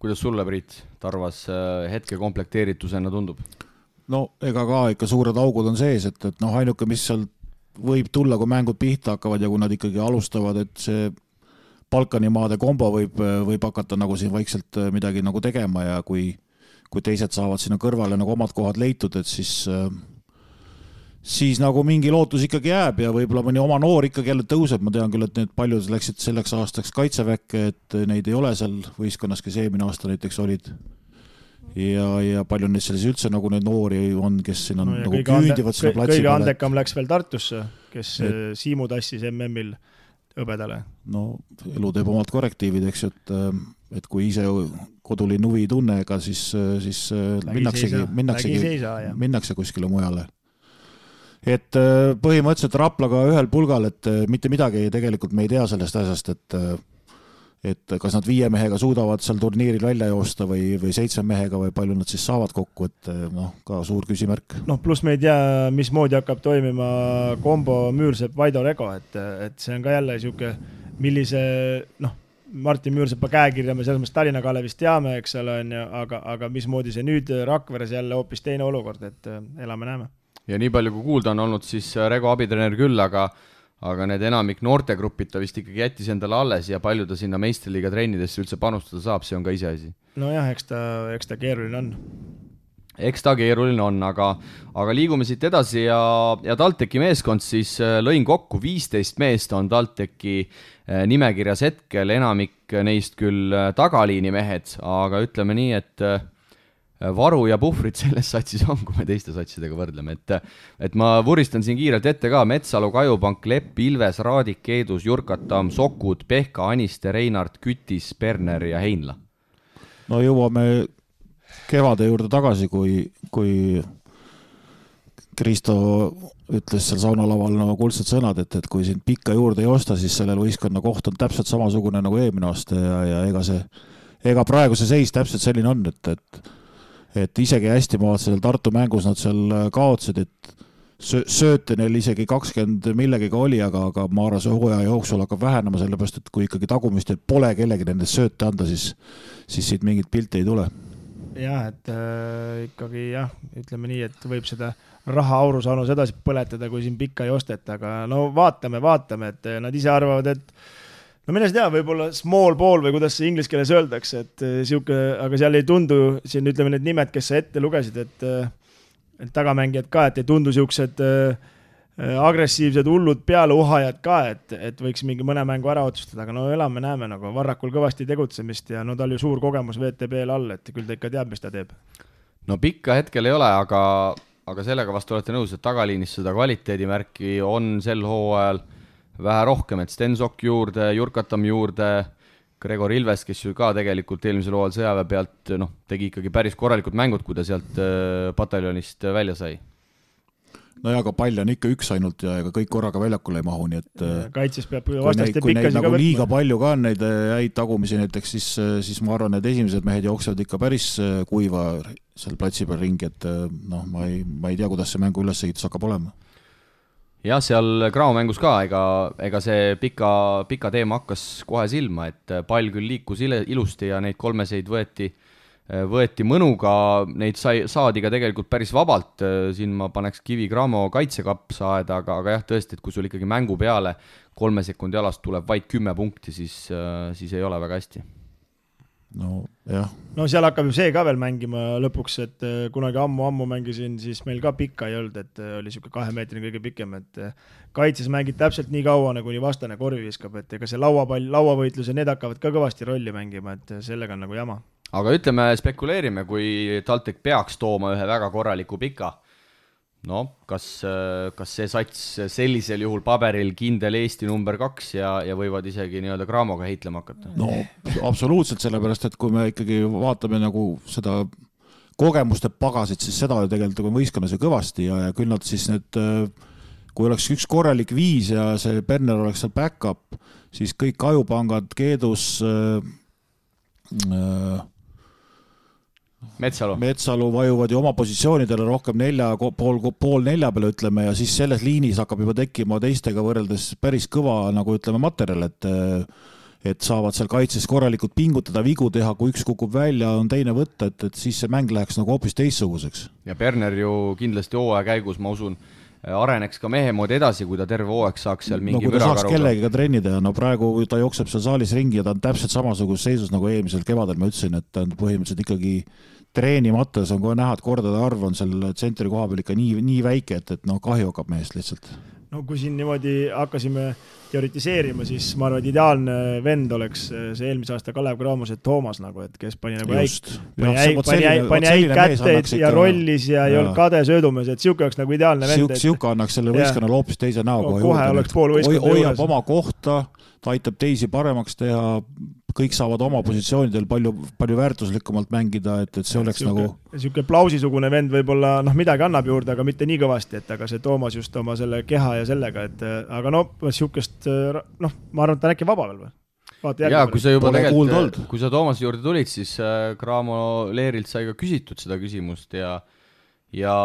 Kuidas sulle, Priit, Tarvas hetke komplekteeritusena tundub? Ega ka ikka suured augud on sees, et ainuke, mis seal võib tulla, kui mängud pihta hakkavad ja kui nad ikkagi alustavad, et see Balkanimaade kombo võib hakata nagu siin vaikselt midagi nagu tegema ja kui teised saavad sinna kõrvale nagu omad kohad leitud, et siis nagu mingi lootus ikkagi jääb ja võib-olla mõni oma noor ikkagi jälle tõuseb. Ma tean küll, et need paljud läksid selleks aastaks kaitseväkke, et neid ei ole seal võistkonnas, kes eelmine aasta näiteks olid. Ja palju neid selles üldse nagu neid noori on, kes siin on nagu küündivad selle platsi kõige andekam läks veel Tartusse, kes Siimu tassis MM-il hõbedale. Elu teeb omad korrektiivid, eks ju, et kui ise kodulinn huvi ei tunne, ega siis minnakse kuskile mujale. Et põhimõtteliselt Raplaga ühel pulgal, et mitte midagi tegelikult me ei tea sellest asjast, et kas nad 5 mehega suudavad seal turniiril välja joosta või 7 mehega või palju nad siis saavad kokku, et ka suur küsimärk. Pluss me ei tea, mismoodi hakkab toimima kombo Müürsepp-Vaido Rego, et see on ka jälle siuke, millise, Martin Müürsepa käekirja me selles mõttes Tallinna Kalevist teame, eks ole, aga mismoodi see nüüd Rakveres jälle hoopis teine olukord, et elame-näeme. Ja nii palju kui kuulda on olnud, siis Rego abitreener küll, aga need enamik noortegrupid ta vist ikkagi jättis endale alles ja palju ta sinna meistriliiga trennidesse üldse panustada saab, see on ka iseasi. Eks ta keeruline on. Eks ta keeruline on, aga liigume siit edasi ja TalTechi meeskond siis lõin kokku 15 meest on TalTechi nimekirjas hetkel, enamik neist küll tagaliini mehed, aga ütleme nii, et varu ja puhvrid selles satsis on, kui me teiste satsidega võrdleme, et ma vuristan siin kiirelt ette ka Metsalu, Kajupank, Lepp, Ilves, Raadik, Keedus, Jurkatam, Sokud, Pehka, Aniste, Reinart, Kütis, Berner ja Heinla. Jõuame kevade juurde tagasi, kui Kristo ütles seal saunalaval kuldsed sõnad, et kui siin pikka juurde ei osta, siis sellel võistkonna koht on täpselt samasugune nagu eelmine aasta ja ega praegu see seis täpselt selline on, et isegi hästi maad sellel Tartu mängus nad seal kaotsid, et sööte neil isegi 20 millegiga oli, aga ma arvan, see hooaja jooksul hakkab vähenema, sellepärast, et kui ikkagi tagumistel pole kellegi nendest sööte anda, siis siit mingit pilti ei tule. jah, et ikkagi jah, ütleme nii, et võib seda raha aurusaanus edasi põletada, kui siin pikka ei osteta, aga no vaatame, et nad ise arvavad, et no mine tea, võib-olla small ball või kuidas see inglise keeles öeldakse, et siuke, aga seal ei tundu, siin ütleme need nimed, kes sa ette lugesid, et tagamängijad ka, et ei tundu siuksed agressiivsed hullud pealeuhajad ka, et võiks mingi mõne mängu ära otsustada, aga no elame-näeme nagu Varrakul kõvasti tegutsemist ja no tal ju suur kogemus VTB-l all, et küll ta ikka teab, mis ta teeb. No pikka hetkel ei ole, aga sellega vastu olete nõus, et tagaliinis seda kvaliteedimärki on sel hooajal vähe rohkem, et Stensok juurde, Jurkatam juurde, Gregor Ilves, kes ju ka tegelikult eelmisel hooajal sõjaväe pealt tegi ikkagi päris korralikud mängud, kui ta sealt pataljonist välja sai. No ja aga pall on ikka üks ainult ja ega kõik korraga väljakule ei mahu, nii et kaitses peab vastaste pikkasi ka võtma. Liiga palju ka on neid häid tagumisi näiteks, siis ma arvan, et esimesed mehed jooksevad ikka päris kuiva seal platsi peal ringi, et ma ei tea, kuidas see mängu ülesehitus hakkab olema. Jah, seal Graamo mängus ka, ega see pika teema hakkas kohe silma, et pall küll liikus ilusti ja neid kolmeseid võeti mõnuga, neid saadi ka tegelikult päris vabalt, siin ma paneks kivi Graamo kaitsekapsa aeda, aga jah, tõesti, et kui sul ikkagi mängu peale 3 sekundi alast tuleb vaid 10 punkti, siis ei ole väga hästi. No jah. No seal hakkab ju see ka veel mängima lõpuks, et kunagi ammu mängisin, siis meil ka pikka ei olnud, et oli siuke 2 meetrini kõige pikem, et kaitses mängid täpselt nii kaua, nagu nii vastane korvi viskab, et ega see lauavõitlus ja need hakkavad ka kõvasti rolli mängima, et sellega on nagu jama. Aga ütleme, spekuleerime, kui TalTech peaks tooma ühe väga korraliku pika. No, kas see sats sellisel juhul paberil kindel Eesti number 2 ja võivad isegi nii-öelda Graamoga heitlema hakata? No, absoluutselt, sellepärast, et kui me ikkagi vaatame nagu seda kogemuste pagasit, siis seda ju tegelikult võistkonna see kõvasti ja küll nad siis need, kui oleks üks korralik 5 ja see Berner oleks seal back-up, siis kõik ajupangad, Keedus, Metsalu vajuvad ju oma positsioonidele rohkem pool nelja peale, ütleme, ja siis selles liinis hakkab juba tekkima teistega võrreldes päris kõva, nagu ütleme, materjal, et saavad seal kaitses korralikult pingutada, vigu teha, kui üks kukub välja, on teine võtta, et siis see mäng läheks nagu hoopis teistsuguseks. Ja Berner ju kindlasti hooaja käigus, ma usun, areneks ka mehe moodi edasi, kui ta terve hooaeg saaks seal mingi kui ta saaks kellegiga trenni teha, no praegu ta jookseb seal saalis ringi ja ta on täpselt samasuguses seisus nagu eelmisel kevadel, ma ütlesin, et ta on põhimõtteliselt ikkagi treenimates on kohe näha, et kordade arv on seal tsentri koha peal ikka nii väike, et kahju hakkab mehest lihtsalt. No kui siin niimoodi hakkasime teoritiseerima, siis ma arvan, et ideaalne vend oleks see eelmise aasta Kalev Graamose Toomas, nagu, et kes pani nagu pani äik kätteid ja rollis ja ei olnud kade söödumees, et siuke oleks nagu ideaalne vend. Siuke annaks selle võistkonnal hoopis teise näo kohe oleks pool võistkonna juures. Hoiab oma kohta, ta aitab teisi paremaks teha, kõik saavad oma positsioonidel palju väärtuslikumalt mängida, et see oleks siuke, nagu siuke plausisugune vend võib-olla midagi annab juurde, aga mitte nii kõvasti, et aga see Toomas just oma selle keha ja sellega, et aga siukest, ma arvan, et ta on äkki vaba veel või? Jaa, kui sa juba tegelikult, kui sa Toomase juurde tulid, siis Graamo Leerilt sai ka küsitud seda küsimust ja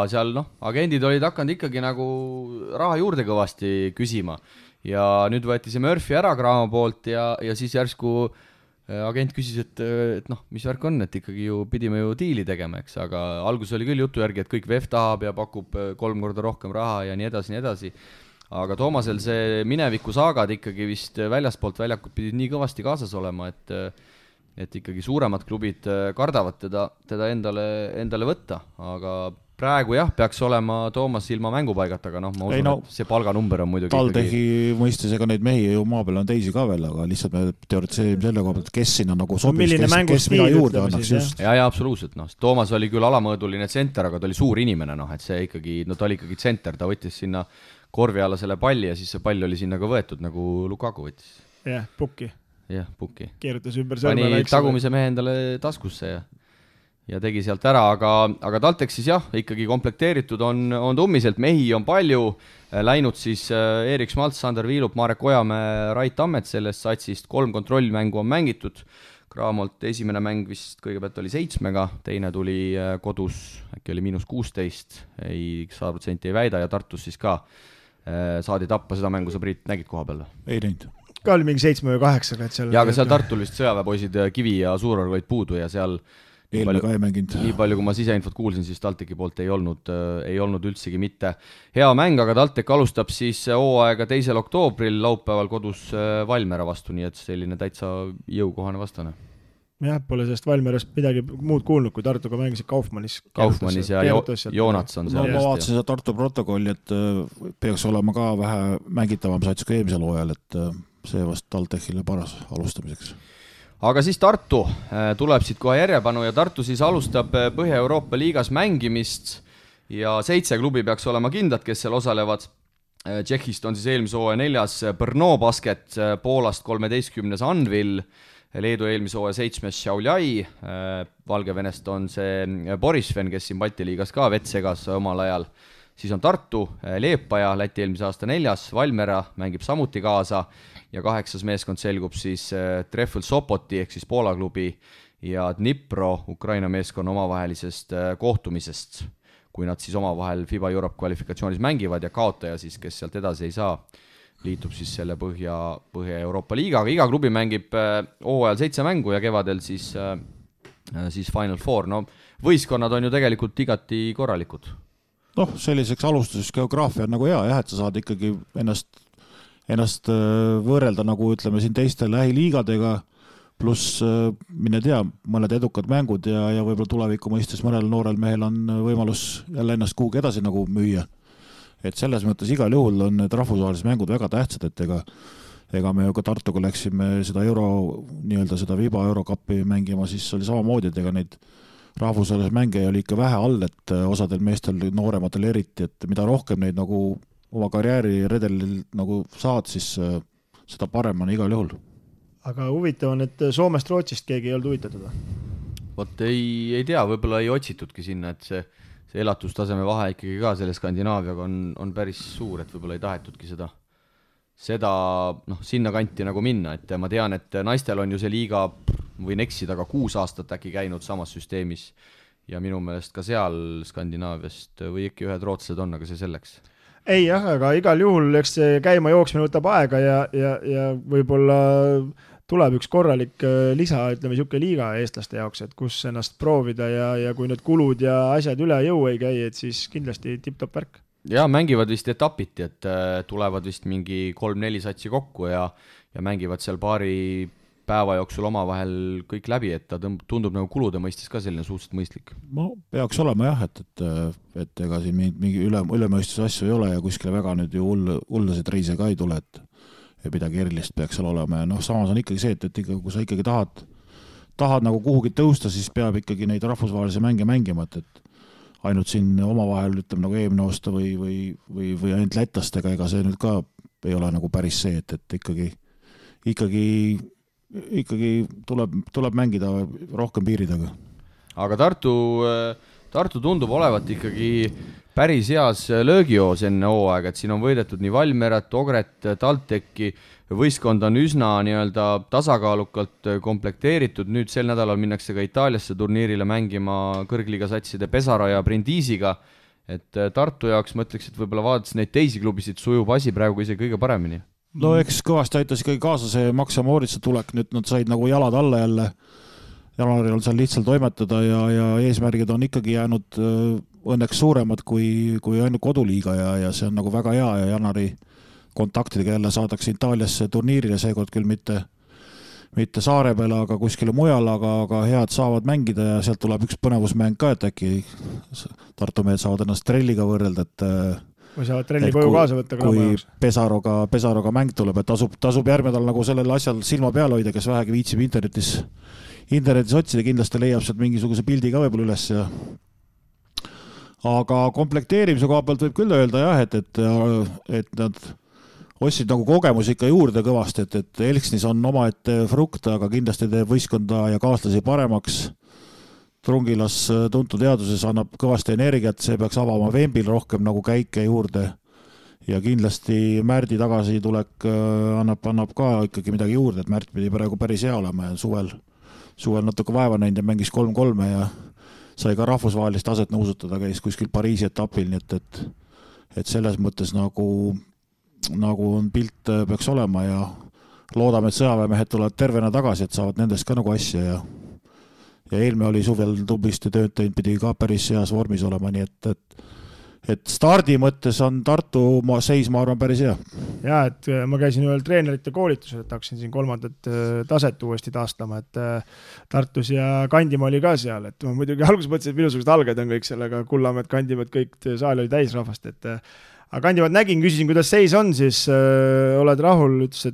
seal agendid olid hakanud ikkagi nagu raha juurde kõvasti küsima ja nüüd võeti see Murphy ära Graamo poolt ja siis järsku agent küsis, et mis värk on, et ikkagi ju pidime ju diili tegema, eks, aga algus oli küll jutu järgi, et kõik VEF tahab ja pakub 3 korda rohkem raha ja nii edasi. Aga Toomasel see mineviku saagad ikkagi vist väljaspoolt väljakut pidid nii kõvasti kaasas olema, et ikkagi suuremad klubid kardavad teda endale võtta, aga praegu jah, peaks olema Toomas ilma mängupaigata, aga ma usun, et see palganumber on muidugi TalTechi mõistes, ega neid mehi ju maa peal on teisi ka veel, aga lihtsalt me teoritiseerime selle koha pealt, kes sinna nagu sobiks, kes mida juurde annaks just. Ja absoluutselt, Toomas oli küll alamõõduline tsenter, aga ta oli suur inimene, et see ikkagi, ta oli ikkagi tsenter, ta võttis sinna korvi alla selle palli ja siis see pall oli sinna ka võetud, nagu Lukaku võttis. Jah, pukki. Keerutas ümber sõrme väikse. Pani tagumise mehe endale taskusse ja tegi sealt ära, aga TalTech siis jah, ikkagi komplekteeritud on tummiselt, mehi on palju, läinud siis Erik Schmaltz, Sander Viilup, Marek Ojamäe, Rait Tammet sellest satsist, 3 kontrollmängu on mängitud, Graamolt esimene mäng vist kõigepealt oli 7-ga, teine tuli kodus, äkki oli -16, 100% ei väida ja Tartus siis ka saadi tappa seda mängu, sa Priit nägid koha peal? Ei näinud. Ka oli mingi 7 või 8, et seal... Ja aga seal Tartul vist sõjaväepoisid Kivi ja Suuror olid puudu ja seal eelmine ka ei mänginud. Nii palju, kui ma siseinfot kuulsin, siis TalTechi poolt ei olnud üldsegi mitte hea mäng, aga TalTech alustab siis hooaega 2. oktoobril laupäeval kodus Valmiera vastu, nii et selline täitsa jõukohane vastane. Jah, pole sellest Valmierast midagi muud kuulnud, kui Tartuga mängisid Kaufmannis ja Joonats on seal. Ma vaatasin seda Tartu protokolli, et peaks olema ka vähe mängitavam sats kui eelmisel hooajal, et see vast TalTechile paras alustamiseks. Aga siis Tartu tuleb siit kohe järjepanu ja Tartu siis alustab Põhja-Euroopa liigas mängimist ja 7 klubi peaks olema kindlad, kes seal osalevad. Tšehhist on siis eelmise hooaja 4. Brno Basket, Poolast 13. Anvil, Leedu eelmise hooaja 7. Šiauliai, Valgevenest on see Borisven, kes siin Balti liigas ka vett segas omal ajal. Siis on Tartu, Leepaja, Läti eelmise aasta 4. Valmiera mängib samuti kaasa ja 8. meeskond selgub siis Treffel Sopoti ehk siis Poola klubi ja Dnipro Ukraina meeskonna omavahelisest kohtumisest, kui nad siis omavahel FIBA Europe kvalifikatsioonis mängivad ja kaotaja siis, kes sealt edasi ei saa, liitub siis selle Põhja-Euroopa liigaga. Iga klubi mängib hooajal 7 mängu ja kevadel siis Final Four. No, võistkonnad on ju tegelikult igati korralikud. Selliseks alustuseks geograafia on nagu hea, et sa saad ikkagi ennast võrrelda nagu ütleme siin teiste lähiliigadega, pluss mine tea, mõned edukad mängud ja võib-olla tuleviku mõistes mõnel noorel mehel on võimalus jälle ennast kuhugi edasi nagu müüa. Et selles mõttes igal juhul on need rahvusvahelised mängud väga tähtsad, et ega me ju ka Tartuga läksime seda seda FIBA Eurocupi mängima, siis oli samamoodi, et ega neid rahvusvahelise mänge oli ikka vähe all, et osadel meestel noorematel eriti, et mida rohkem neid nagu oma karjääri redelil nagu saad, siis seda parem on igal juhul. Aga huvitav on, et Soomest Rootsist keegi ei olnud huvitatud? Vot ei tea, võib-olla ei otsitudki sinna, et see elatustaseme vahe ikkagi ka selle Skandinaaviaga on päris suur, et võib-olla ei tahetudki seda sinna kanti nagu minna, et ma tean, et naistel on ju see liiga, võin eksida, aga 6 aastat äkki käinud samas süsteemis ja minu meelest ka seal Skandinaaviast või ikka ühed rootslased on, aga see selleks. Ei jah, aga igal juhul eks see käima jooksmine võtab aega ja võib-olla tuleb üks korralik lisa, ütleme siuke liiga eestlaste jaoks, et kus ennast proovida ja kui need kulud ja asjad üle jõu ei käi, et siis kindlasti tipp-top värk. Ja mängivad vist etapiti, et tulevad vist mingi 3-4 satsi kokku ja mängivad seal paari päeva jooksul omavahel kõik läbi, et ta tundub nagu kulude mõistes ka selline suhteliselt mõistlik. Peaks olema jah, et ega siin mingi ülemõistuse asju ei ole ja kuskile väga nüüd ju hullasid reise ka ei tule, et midagi erilist peaks seal olema ja samas on ikkagi see, et kui sa ikkagi tahad nagu kuhugi tõusta, siis peab ikkagi neid rahvusvahelisi mänge mängima, et ainult siin omavahel ütleme nagu eelmine aasta või ainult lätlastega, ega see nüüd ka ei ole nagu päris see, et ikkagi tuleb mängida rohkem piiridega. Aga Tartu tundub olevat ikkagi päris heas löögijoos enne hooaega, et siin on võidetud nii Valmierat, Ogret, TalTechi, võistkond on üsna tasakaalukalt komplekteeritud, nüüd sel nädalal minnakse ka Itaaliasse turniirile mängima kõrgliiga satside Pesaro ja Brindisiga, et Tartu jaoks ma ütleks, et võib-olla vaadates neid teisi klubisid sujub asi praegu isegi kõige paremini. No eks kõvasti aitas ikkagi kaasa see Max ja Moritsa tulek, nüüd nad said nagu jalad alla jälle, jaanuaril seal lihtsalt toimetada ja eesmärgid on ikkagi jäänud õnneks suuremad kui ainult koduliiga ja see on nagu väga hea ja jaanuari kontaktidega jälle saadakse Itaaliasse turniirile, seekord küll mitte saare peale, aga kuskile mujal, aga head saavad mängida ja sealt tuleb üks põnevusmäng ka, et äkki Tartu mehed saavad ennast Trelliga võrrelda, et või saavad Trelli koju kaasa võtta kui Pesaroga mäng tuleb, et tasub järgmine nädal nagu sellel asjal silma peal hoida, kes vähegi viitsib internetis otsida, kindlasti leiab sealt mingisuguse pildi ka võib-olla üles ja aga komplekteerimise koha pealt võib küll öelda jah, et nad ostsid nagu kogemusi ikka juurde kõvasti, et Elksnis on omaette frukt, aga kindlasti teeb võistkonda ja kaaslasi paremaks. Trungilas tuntud teaduses annab kõvasti energiat, see peaks avama Vembil rohkem nagu käike juurde ja kindlasti Märdi tagasitulek annab ka ikkagi midagi juurde, et Märt pidi praegu päris hea olema ja suvel natuke vaeva näinud ja mängis 3-3 ja sai ka rahvusvahelist taset nõusutada, käis kuskil Pariisi etapil, nii et selles mõttes nagu on pilt peaks olema ja loodame, et sõjaväemehed tulevad tervena tagasi, et saavad nendest ka nagu asja ja eelmine oli suvel tublisti tööd teinud, pidi ka päris heas vormis olema, nii et stardi mõttes on Tartu seis, ma arvan, päris hea. Ja, et ma käisin ühel treenerite koolitusel, et hakkasin siin 3. taset uuesti taastama, et Tartus ja Kandimaa oli ka seal, et ma muidugi alguses mõtlesin, et minusugused alged on kõik sellega, Kullamäed, Kandimaad, kõik saal oli täis rahvast, et aga Kandimaad nägin, küsisin, kuidas seis on, siis oled rahul, ütles,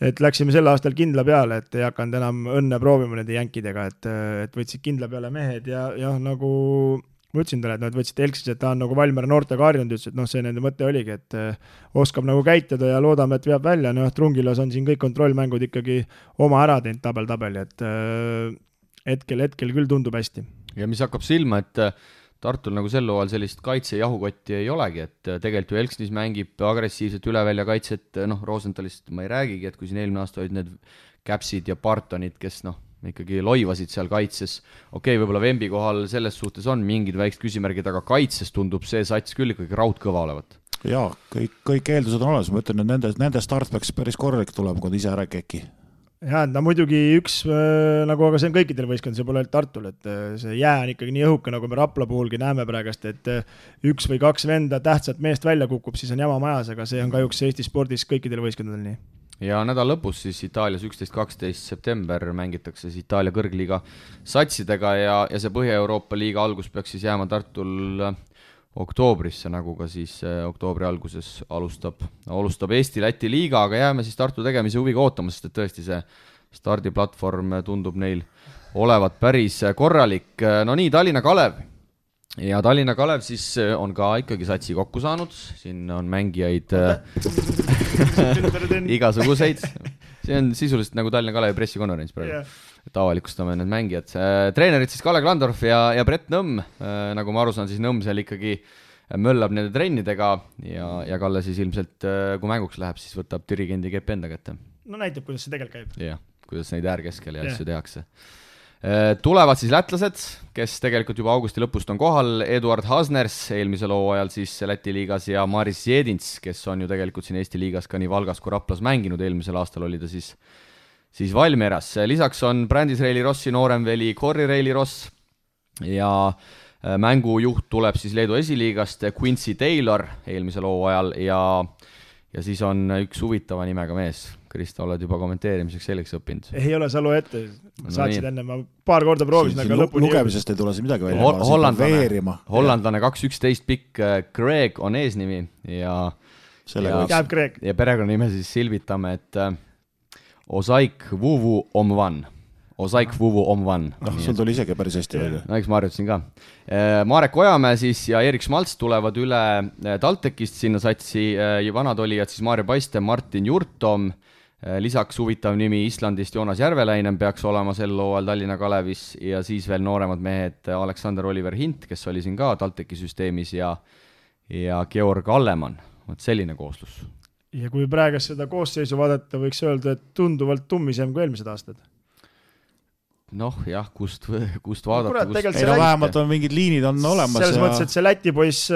et läksime sel aastal kindla peale, et ei hakanud enam õnne proovima nende jänkidega, et võtsid kindla peale mehed ja nagu ma ütlesin talle, et nad võtsid Elksis, et ta on nagu Valmiera noortega harjunud, ütles, et see nende mõte oligi, et oskab nagu käituda ja loodame, et veab välja, Trungilas on siin kõik kontrollmängud ikkagi oma ära teinud tabel, et hetkel küll tundub hästi. Ja mis hakkab silma, et Tartul nagu sel hooajal sellist kaitse jahukotti ei olegi, et tegelikult ju Elksnis mängib agressiivselt üle välja kaitset, Rosenthalist ma ei räägigi, et kui siin eelmine aasta olid need Käpsid ja Bartonid, kes ikkagi loivasid seal kaitses. Okei, võib-olla Vembi kohal selles suhtes on mingid väiksed küsimärgid, aga kaitses tundub see sats küll ikkagi raudkõva olevat. Jaa, kõik eeldused on olemas, ma ütlen, et nende start peaks päris korralik tulema, kui ise ära keki. Jaa, muidugi üks, aga see on kõikidel võistkond, see pole Tartul, et see jää on ikkagi nii õhuke, nagu me Rapla puhulgi näeme praegast, et 1 või 2 venda tähtsat meest välja kukub, siis on jama majas, aga see on kahjuks Eesti spordis kõikidel võistkondadel nii. Ja nädal lõpus siis Itaalias 11-12 september mängitakse siis Itaalia kõrgliiga satsidega ja see Põhja-Euroopa liiga algus peaks siis jääma Tartul oktoobrisse, nagu ka siis oktoobri alguses alustab Eesti-Läti liiga, aga jääme siis Tartu tegemise huviga ootama, sest et tõesti see stardiplatvorm tundub neil olevat päris korralik. No nii, Tallinna Kalev. Ja Tallinna Kalev siis on ka ikkagi satsi kokku saanud, siin on mängijaid igasuguseid, see on sisuliselt nagu Tallinna Kalevi pressikonverents praegu, et avalikustame need mängijad. Treenerid siis Kalle Klandorf ja Brett Nõmm, nagu ma aru saan, siis Nõmm seal ikkagi möllab nende trennidega ja Kalle siis ilmselt, kui mänguks läheb, siis võtab dirigendi kepp enda kätte. No näitab, kuidas see tegelikult käib. Jah, kuidas neid äärkeskel ja asju tehakse. Tulevad siis lätlased, kes tegelikult juba augusti lõpust on kohal, Eduard Hasners eelmisel hooajal siis Läti liigas ja Maris Jedins, kes on ju tegelikult siin Eesti liigas ka nii Valgas kui Raplas mänginud, eelmisel aastal oli ta siis Valmieras. Lisaks on Brandis Reili Rossi nooremveli Corri Reili Ross ja mängujuht tuleb siis Leedu esiliigast Quincy Taylor eelmisel hooajal ja siis on üks huvitava nimega mees. Krista, oled juba kommenteerimiseks selgeks õppinud? Ei ole, sa loe ette. Saatsid enne, ma paar korda proovisin, aga lõpuni... Lugemisest ei tule siin midagi välja. Hollandlane 2-11 pikk Greg on eesnimi ja perekonna nime siis silvitame, et Osaik Vuvu Omvan. Osaik Vuvu Omvan. Sul tuli isegi päris hästi välja. No eks ma harjutasin ka. Marek Ojamäe siis ja Erik Schmalz tulevad üle TalTechist sinna satsi vanad olijad siis Maarja Paiste, Martin Jurtom, lisaks huvitav nimi Islandist Joonas Järveläinen peaks olema sel hooajal Tallinna Kalevis ja siis veel nooremad mehed Aleksander Oliver Hint, kes oli siin ka TalTechi süsteemis ja Georg Allemann. Selline kooslus. Ja kui praegu seda koosseisu vaadata, võiks öelda, et tunduvalt tummisem kui eelmised aastad. Noh, jah, kust vaadata. Vähemalt on mingid liinid on olemas. Selles mõttes, et see Läti poiss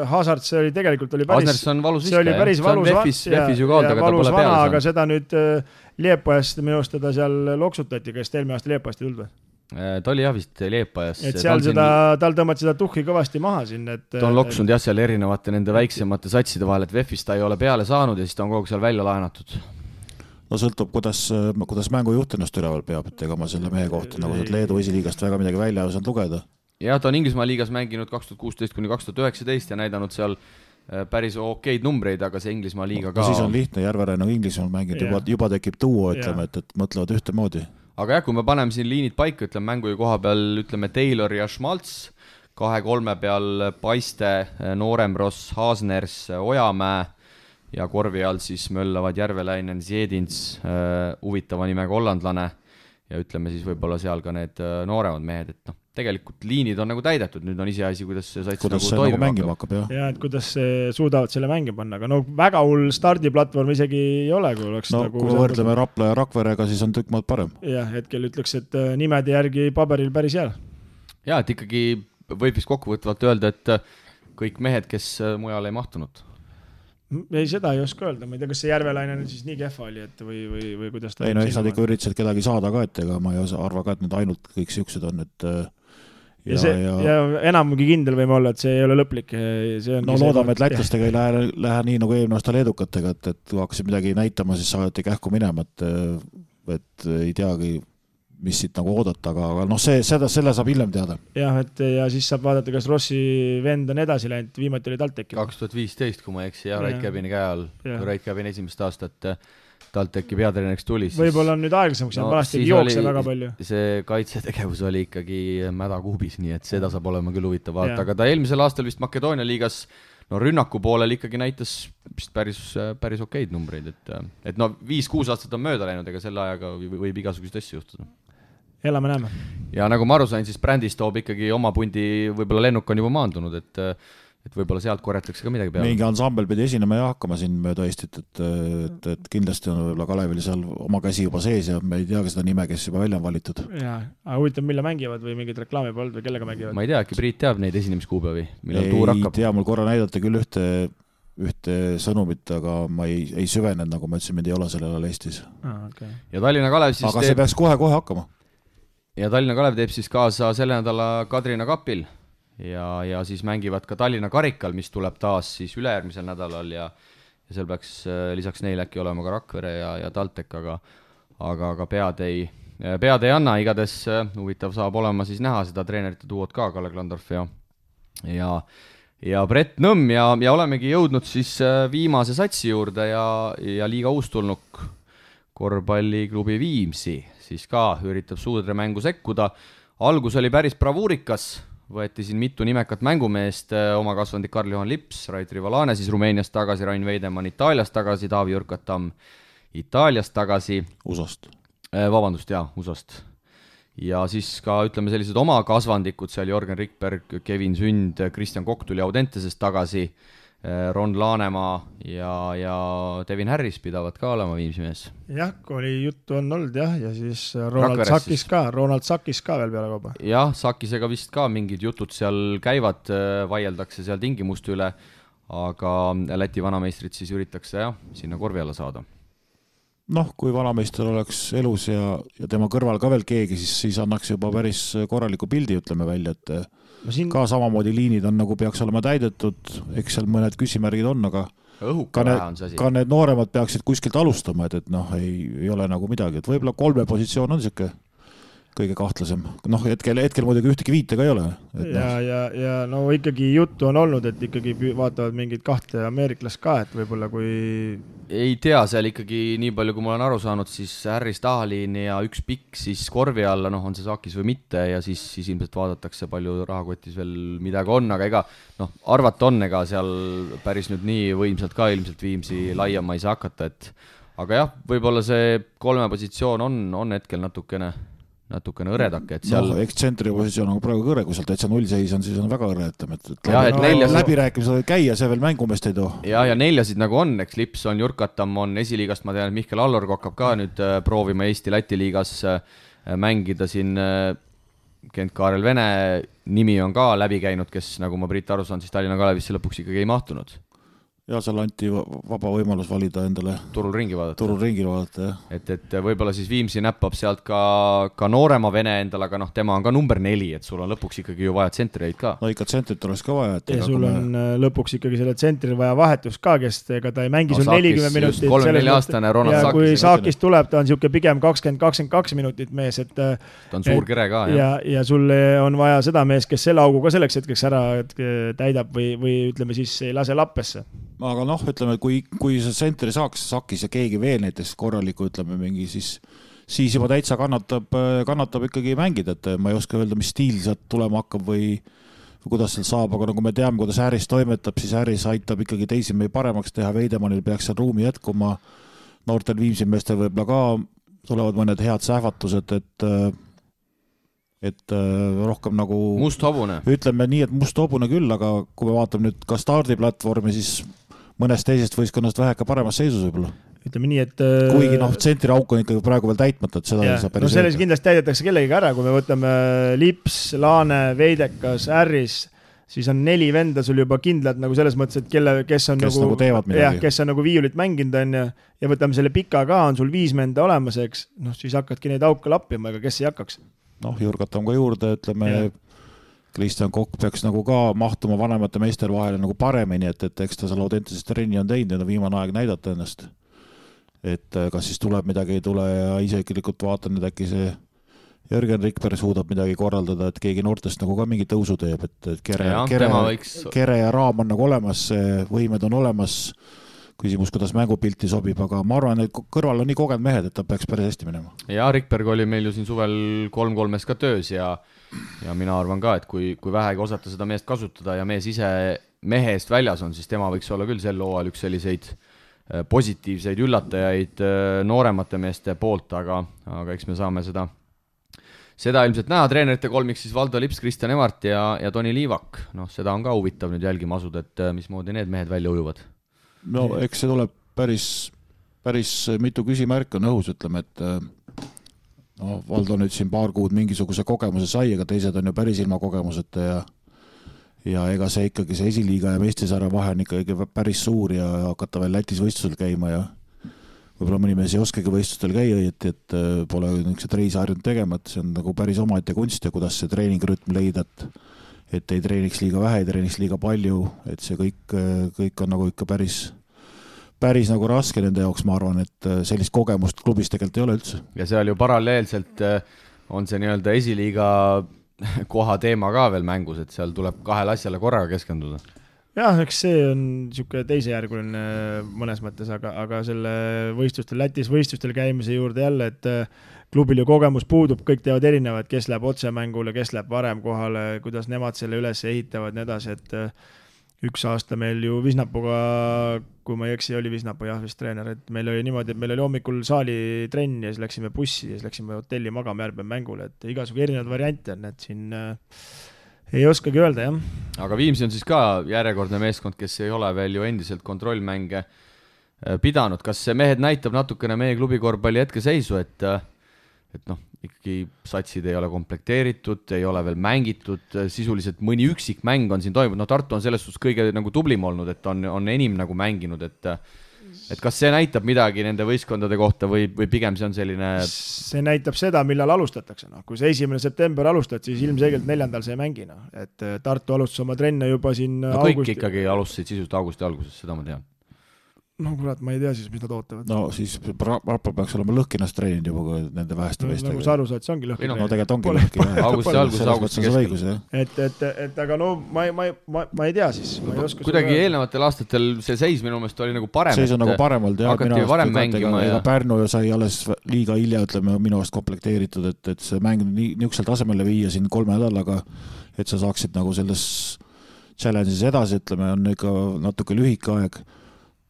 Hazard, see oli tegelikult Hasners on valus viska, see oli päris valus vana, aga seda nüüd Liepajast minu arust teda seal loksutati, kes eelmine aasta Liepajast ei tulnud või? Ta oli jah vist Liepajast. Et seal tal tõmmati seda tuhhi kõvasti maha siin. Ta on loksunud jah seal erinevate nende väiksemate satside vahel, et VEF-ist ta ei ole peale saanud ja siis ta on kogu seal välja laenatud. No sõltub, kuidas mängujuht ennast üleval peab, et ega ma selle mehe kohta nagu Leedu esiliigast väga midagi välja osanud lugeda. Ja ta on Inglismaa liigas mänginud 2016-2019 ja näidanud seal päris okeid numbreid, aga see Inglismaa liiga ka... Siis on lihtne, Järveräin on Inglismaal mänginud, juba tekib tuua, ütleme, et mõtlevad ühtemoodi. Aga jah, kui me paneme siin liinid paika, ütleme mängu koha peal, ütleme Taylor ja Schmalz, 2-3 peal Paiste, Nooremross, Hasners, Ojamäe ja korvi all siis möllavad Järveläinen, Zjedins, huvitava nimega hollandlane ja ütleme siis võib-olla seal ka need nooremad mehed, et tegelikult liinid on nagu täidetud, nüüd on iseasi, kuidas see sats nagu toimima mängima hakkab. Ja, et kuidas suudavad selle mängi panna, aga väga hull stardiplatvorm isegi ei ole, kui oleks nagu... Kui võrdleme Rapla ja Rakverega, siis on tükk maad parem. Jah, hetkel ütleks, et nimede järgi paberil päris hea. Ja, et ikkagi võib vist kokkuvõtvalt öelda, et kõik mehed, kes mujal ei mahtunud. Ei, seda ei oska öelda, ma ei tea, kas see Järvelaine nüüd siis nii kehva oli, et või kuidas ta... Ei, no eks nad ikka üritasid kedagi saada ka, et ega ma ei arva ka, et need ainult kõik siuksed on, et ja enamugi kindel võime olla, et see ei ole lõplik. No loodame, et lätlastega ei lähe nii nagu eelmine aasta leedukatega, et kui hakkasid midagi näitama, siis saadeti kähku minema, et ei teagi, mis siit nagu oodata, aga noh, selle saab hiljem teada. Jah, ja siis saab vaadata, kas Rossi vend on edasi läinud, viimati oli TalTechi. 2015, kui ma eksi, ja Rait Käbini käe all, Rait Käbini esimest aastat TalTechi peatreeneriks tuli. Võib-olla on nüüd aeglasemaks, vanasti jookse väga palju. See kaitsetegevus oli ikkagi mädakuubis, nii et seda saab olema küll huvitav vaata, aga ta eelmisel aastal vist Makedoonia liigas rünnaku poolel ikkagi näitas päris okeid numbreid, et 5-6 aastat on mööda läinud, ega selle ajaga võib igasugused asju juhtuda. Elame näeme. Ja nagu ma aru sain, siis brändis toob ikkagi oma pundi, võib-olla lennuk on juba maandunud, et võib-olla sealt korjatakse ka midagi peale. Mingi ansambel pidi esinema ja hakkama siin mööda Eestit, et kindlasti on võib-olla Kalevil seal oma käsi juba sees ja me ei tea ka seda nime, kes juba välja on valitud. Jaa, aga huvitav, mille mängivad või mingid reklaami pooled või kellega mängivad? Ma ei tea, äkki Priit teab neid esinemiskuupäevi, millal tuur hakkab. Ei tea, mul korra näidata küll ühte sõnumit, aga ma ei süvenenud, nagu ma ütlesin, mind ei ole sellel ajal Eestis. Okay. Ja Tallinna Kalev siis aga see peaks kohe hakkama. Ja Tallinna Kalev teeb siis kaasa selle nädala Kadrina kapil ja siis mängivad ka Tallinna karikal, mis tuleb taas siis ülejärgmisel nädalal ja seal peaks lisaks neil äkki olema ka Rakvere ja TalTech, aga pead ei anna, igades huvitav saab olema siis näha seda treenerite duot ka, Kalle Klandorf ja Brett Nõmm ja olemegi jõudnud siis viimase satsi juurde ja liiga uustulnuk korvpalliklubi Viimsi siis ka üritab suudre mängu sekkuda. Algus oli päris bravuurikas, võeti siin mitu nimekat mängumeest, oma kasvandik Karl-Johan Lips, Rait Rivalane siis Rumeeniast tagasi, Rain Veidemann Itaaliast tagasi, Taavi Jürkatam Itaaliast tagasi. USA-st. Vabandust, USA-st. Ja siis ka ütleme sellised oma kasvandikud, seal Jorgen Rikberg, Kevin Sünd, Kristjan Kokk tuli Audentesest tagasi, Ron Laanemaa ja Devin Harris pidavad ka olema Viimsi mees. Jah, kui oli juttu on olnud ja siis Ronald Sakis ka veel peale kauba. Jah, Sakisega vist ka mingid jutud seal käivad, vaieldakse seal tingimuste üle, aga Läti vanameistrid siis üritakse sinna korvi alla saada. Noh, kui vanameister oleks elus ja tema kõrval ka veel keegi, siis annaks juba päris korraliku pildi, ütleme välja, et ka samamoodi liinid on nagu peaks olema täidetud, eks seal mõned küsimärgid on, aga ka need nooremad peaksid kuskilt alustama, et noh, ei ole nagu midagi, et võib-olla 3 positsioon on siuke kõige kahtlasem. Noh, hetkel muidugi ühtegi viitega ei ole. Ja no ikkagi juttu on olnud, et ikkagi vaatavad mingid 2 ameeriklast ka, et võib-olla kui... Ei tea, seal ikkagi nii palju, kui ma olen aru saanud, siis Harris Tahalin ja üks pikk siis korvi alla, on see Sakis või mitte ja siis ilmselt vaadatakse palju rahakotis veel midagi on, aga ega arvata on, ega seal päris nüüd nii võimsalt ka ilmselt Viimsi laiema ei saa hakata, et aga jah, võib-olla see 3 positsioon on hetkel natukene õredake, et seal... eks tsentri positsioon on praegu kõre, kui seal täitsa 0 seis on, siis on väga õre, läbirääkimised võib käia, see veel mängumest ei too. Ja 4 nagu on, eks Lips on, Jürkatam on esiliigast, ma tean, et Mihkel Allorg hakkab ka nüüd proovima Eesti-Läti liigas mängida siin, Kent Kaarel Vene nimi on ka läbi käinud, kes nagu ma Priit aru saan, siis Tallinna Kalevisse lõpuks ikkagi ei mahtunud. Ja seal anti vaba võimalus valida endale turul ringi vaadata, jah. Et võib-olla siis Viimsi näppab sealt ka noorema Vene endale, aga tema on ka number 4, et sul on lõpuks ikkagi ju vaja tsentreid ka. No ikka tsentrit oleks ka vaja. Ja sul on lõpuks ikkagi selle tsentril vaja vahetus ka, kes ega ta ei mängi sul 40 minutit. 34 aastane Ronald Sakis. Ja kui Sakis tuleb, ta on siuke pigem 20-22 minutit mees, et ta on suur kere ka. Ja sul on vaja seda mees, kes selle augu ka selleks hetkeks ära täidab või ütleme siis ei lase lappesse. Aga noh, ütleme, kui see tsentri saaks Sakis ja keegi veel näiteks korraliku, ütleme mingi, siis juba täitsa kannatab ikkagi mängida, et ma ei oska öelda, mis stiil sealt tulema hakkab või kuidas seal saab, aga nagu me teame, kuidas Harris toimetab, siis Harris aitab ikkagi teisi meie paremaks teha, Veidemannil peaks seal ruumi jätkuma, noortel Viimsi meestel võib-olla ka tulevad mõned head sähvatused, et rohkem nagu musthobune. Ütleme nii, et musthobune küll, aga kui me vaatame nüüd ka stardiplatvormi, siis mõnest teisest võistkonnast väheka paremas seisus võib-olla. Ütleme nii, et... Kuigi tsentri auk on ikkagi praegu veel täitmata, et seda ei saa päris... selles kindlasti täidetakse kellegi ära, kui me võtame Lips, Laane, Veidekas, Harris, siis on 4 venda sul juba kindlad nagu selles mõttes, et kes on nagu teevad midagi. Kes on nagu viiulit mänginud on ja võtame selle pika ka, on sul 5 venda olemas, eks, noh, siis hakkadki neid auke lappima, ega kes ei hakkaks. Noh, Jurgatame ka juurde, ütleme, Kristjan Kokk peaks nagu ka mahtuma vanemate meestel vahele nagu paremini, et eks ta seal Audentases trenni on teinud ja viimane aeg näidata ennast. Et kas siis tuleb midagi ei tule ja iseklikult vaatan, et äkki see Jörgen Rikberg suudab midagi korraldada, et keegi noortest nagu ka mingi tõusu teeb, et kere ja raam on nagu olemas, võimed on olemas, küsimus, kuidas mängupilti sobib, aga ma arvan, et kõrval on nii kogenud mehed, et ta peaks päris hästi minema. Ja Rikberg oli meil ju siin suvel 3-3 ka töös ja mina arvan ka, et kui vähegi osata seda meest kasutada ja mees ise mehe eest väljas on, siis tema võiks olla küll sel hooajal üks selliseid positiivseid üllatajaid nooremate meeste poolt, aga eks me saame seda ilmselt näha. Treenerite kolmik siis Valdo Lips, Kristjan Emart ja Toni Liivak. Noh, seda on ka huvitav nüüd jälgima asuda, et mismoodi need mehed välja ujuvad. No eks see tuleb päris mitu küsimärk on õhus, ütleme, et no, Valdo nüüd siin paar kuud mingisuguse kogemuse sai, aga teised on ju päris ilma kogemuseta ja ega see ikkagi see esiliiga ja meistrisarja vahe on ikkagi päris suur ja hakata veel Lätis võistlusel käima ja võib-olla mõni mees ei oskagi võistlustel käia, et pole niisugused reisi harjunud tegema, et see on nagu päris omaette kunst ja kuidas see treeningrütm leida, et ei treeniks liiga vähe, ei treeniks liiga palju, et see kõik on nagu ikka päris nagu raske nende jaoks, ma arvan, et sellist kogemust klubis tegelikult ei ole üldse. Ja seal ju paralleelselt on see nii-öelda esiliiga koha teema ka veel mängus, et seal tuleb 2 asjale korraga keskenduda. Jah, eks see on niisugune teisejärguline mõnes mõttes, aga selle Lätis võistlustel käimise juurde jälle, et klubil ju kogemus puudub, kõik teevad erinevad, kes läheb otsemängule, kes läheb varem kohale, kuidas nemad selle üles ehitavad, nii edasi, et üks aasta meil ju Visnapuga, kui ma ei eksi, oli Visnapu vist treener, et meil oli niimoodi, et meil oli hommikul saali trenn ja siis läksime bussi ja siis läksime hotelli magama järgmine mängule, et igasugu erinevad variante on, et siin ei oskagi öelda, jah. Aga Viimsi on siis ka järjekordne meeskond, kes ei ole veel ju endiselt kontrollmänge pidanud. Kas see mehed näitab natukene meie klubi korvpalli hetkeseisu, et noh, ikkagi satsid ei ole komplekteeritud, ei ole veel mängitud, sisuliselt mõni üksik mäng on siin toimunud. No Tartu on selles suhtes kõige nagu tublim olnud, et on enim nagu mänginud, et kas see näitab midagi nende võistkondade kohta või pigem see on selline... See näitab seda, millal alustatakse. No. Kui see 1. september alustad, siis ilmselgelt 4. see ei mängi. No. Et Tartu alustas oma trenne juba siin kõik ikkagi alustasid sisuliselt augusti alguses, seda ma tean. No kurat, ma ei tea siis, mis nad ootavad. No siis Rappa peaks olema lõhkinast treeninud juba nende väheste meestega. Nagu sa aru saad, see ongi lõhki. No tegelikult ongi lõhki. Augusti keskel. Et aga no ma ei tea siis. Kuidagi eelnevatel aastatel see seis minu meelest oli nagu parem. Seis on nagu parem olnud. Hakati varem mängima. Ega Pärnu sai alles liiga hilja, ütleme, minu aast komplekteeritud, et see mäng niisugusel tasemele viia siin 3 nädalaga, et sa saaksid nagu selles challenge'is edasi, ütleme, on ikka natuke lühike aeg.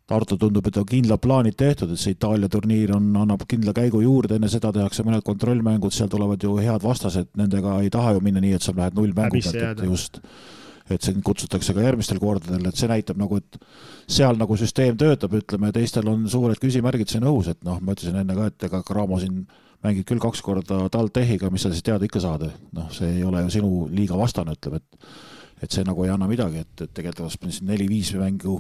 Tartu tundub, et on kindlad plaanid tehtud, et see Itaalia turniir annab kindla käigu juurde, enne seda tehakse mõned kontrollmängud, seal tulevad ju head vastased, nendega ei taha ju minna nii, et sa lähed 0 mängu pealt, et see kutsutakse ka järgmistel kordadel, et see näitab nagu, et seal nagu süsteem töötab, ütleme, teistel on suured küsimärgid siin õhus, et noh, ma ütlesin enne ka, et ega Cramo siin mängid küll 2 korda TalTechiga, mis sa siis teada ikka saada, noh, see ei ole ju sinu liiga vastane, ütleme, et see nagu ei anna midagi, et tegelikult siin 4-5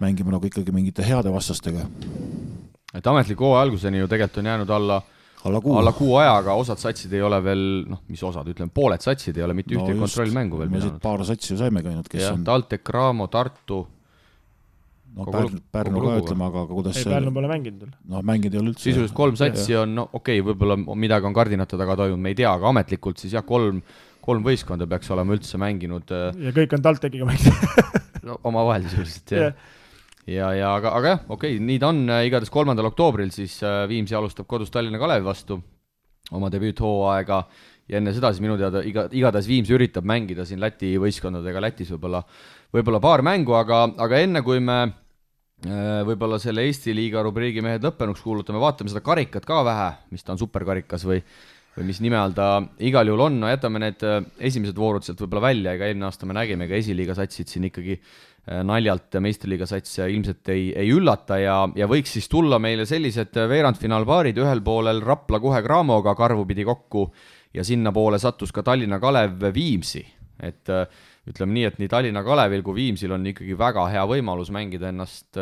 mängime nagu ikkagi mingite heade vastastega. Et ametliku hooaja alguseni ju tegelikult on jäänud alla kuu ajaga, osad satsid ei ole veel, noh, mis osad, ütleme, pooled satsid ei ole mitte ühtegi kontrollmängu veel pidanud. Paar satsi ju saime käinud, kes on... TalTech, Cramo, Tartu. No Pärnu ka ütleme, aga kuidas... Ei, Pärnu pole mänginud veel. No mänginud ei ole üldse. Sisuliselt 3 satsi on, no okei, võib-olla midagi on kardinate taga toimunud, me ei tea, aga ametlikult siis jah, 3 võistkonda peaks olema üldse mänginud. Ja kõik on TalTechiga mänginud. No oma vahel sisuliselt, jah. Aga jah, okei, nii ta on. Igatahes 3. oktoobril siis Viimsi alustab kodus Tallinna Kalevi vastu oma debüüthooaega ja enne seda siis minu teada igatahes Viimsi üritab mängida siin Läti võistkondadega Lätis võib-olla paar mängu, aga enne kui me võib-olla selle Eesti liiga rubriigi mehed lõppenuks kuulutame, vaatame seda karikat ka vähe, mis ta on superkarikas või mis nime all ta igal juhul on. No jätame need esimesed voorud sealt võib-olla välja, ega eelmine aasta me nägime, ega esiliiga satsid siin ikkagi naljalt meistriliiga sats ilmselt ei üllata ja võiks siis tulla meile sellised veerandfinaalpaarid, ühel poolel Rapla kohe Cramoga karvu pidi kokku ja sinna poole sattus ka Tallinna Kalev Viimsi. Et ütleme nii, et nii Tallinna Kalevil kui Viimsil on ikkagi väga hea võimalus mängida ennast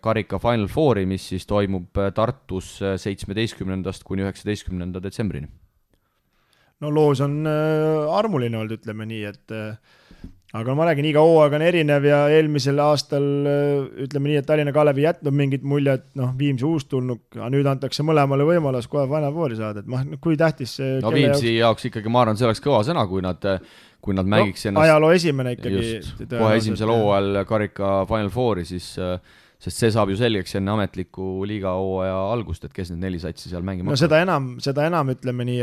karika Final Fouri, mis siis toimub Tartus 17. kuni 19. detsembrini. No loos on armuline olnud, ütleme nii, et aga ma räägin, iga hooaeg on erinev ja eelmisel aastal ütleme nii, et Tallinna Kalev ei jätnud mingit mulje, et Viimsi uustulnuk, aga nüüd antakse mõlemale võimalus kohe Final Fouri saada, et kui tähtis see no Viimsi jaoks ikkagi, ma arvan, see oleks kõva sõna, kui nad mängiks ennast ajaloo esimene ikkagi just, kohe esimesel hooajal karika Final Fouri, siis sest see saab ju selgeks enne ametliku liiga hooaja algust, et kes need 4 satsi seal mängima no seda enam ütleme nii,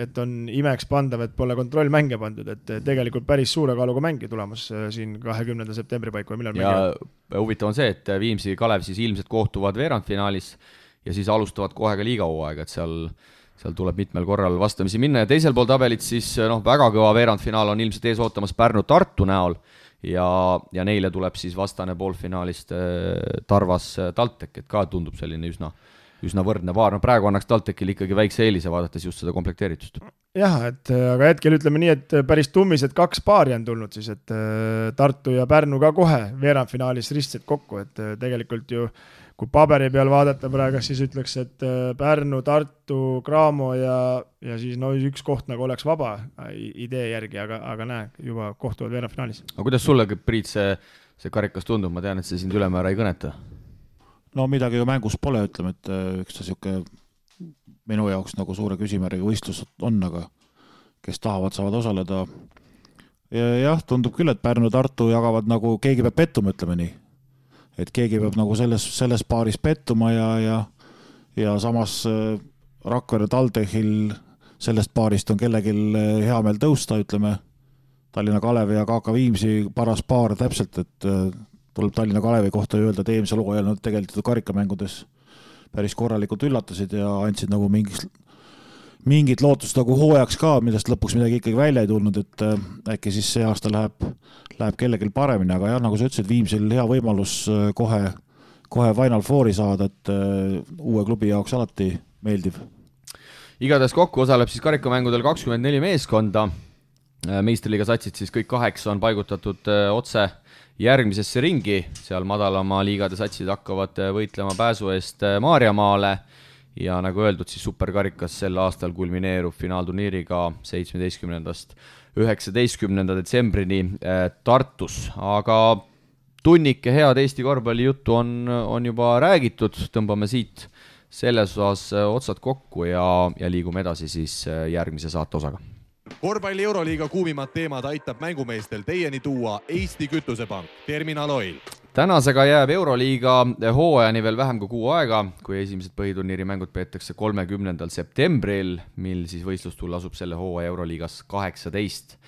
et on imeks pandav, et pole kontrollmänge pandud, et tegelikult päris suure kaaluga mängi tulemas siin 20. septembri paiku millal mängivad. Ja huvitav on see, et Viimsi Kalev siis ilmselt kohtuvad veerandfinaalis ja siis alustavad kohe ka liiga hooaega, et seal tuleb mitmel korral vastamisi minna ja teisel pool tabelit siis väga kõva veerandfinaal on ilmselt ees ootamas Pärnu-Tartu näol ja neile tuleb siis vastane poolfinaalist Tarvas TalTech, et ka tundub selline üsna võrdne paar. No praegu annaks TalTechil ikkagi väikse eelise vaadates just seda komplekteeritust. Jah, aga hetkel ütleme nii, et päris tummised 2 paari on tulnud siis, et Tartu ja Pärnu ka kohe veerandfinaalis ristsed kokku, et tegelikult ju kui paberi peal vaadata praegu, siis ütleks, et Pärnu, Tartu, Graamo ja siis üks koht nagu oleks vaba idee järgi, aga näe, juba kohtuvad veerandfinaalis. Aga kuidas sulle, Priit, see karikas tundub? Ma tean, et see sind ülemäära ei kõneta. No midagi ju mängus pole, ütleme, et üks siuke minu jaoks nagu suure küsimärgiga võistlus on, aga kes tahavad, saavad osaleda. Ja jah, tundub küll, et Pärnu ja Tartu jagavad nagu keegi peab pettuma, ütleme nii. Et keegi peab nagu selles paaris pettuma ja samas Rakvere TalTechil sellest paarist on kellegil hea meel tõusta, ütleme Tallinna Kalevi ja KK Viimsi paras paar täpselt, et tuleb Tallinna Kalevi kohta öelda, et eelmisel hooajal nad tegelikult karikamängudes päris korralikult üllatasid ja andsid nagu mingit lootust nagu hooajaks ka, millest lõpuks midagi ikkagi välja ei tulnud, et äkki siis see aasta läheb kellelgi paremini, aga jah, nagu sa ütlesid, Viimsil hea võimalus kohe Final Fouri saada, et uue klubi jaoks alati meeldiv. Igatahes kokku osaleb siis karikamängudel 24 meeskonda, meistriliiga satsid siis kõik 8 on paigutatud otse järgmisesse ringi, seal madalama liigade satsid hakkavad võitlema pääsu eest Maarjamaale ja nagu öeldud, siis superkarikas sel aastal kulmineerub finaalturniiriga 17. 19. detsembrini Tartus, aga tunnike head Eesti korvpalli juttu on juba räägitud, tõmbame siit selles osas otsad kokku ja liigume edasi siis järgmise saate osaga. Korvpalli Euroliiga kuumimad teemad aitab mängumeestel teieni tuua Eesti Kütusepank, Terminal Oil. Tänasega jääb Euroliiga hooajani veel vähem kui 6 aega, kui esimesed põhiturniiri mängud peetakse 30. septembril, mil siis võistlustull asub selle hooaja Euroliigas 18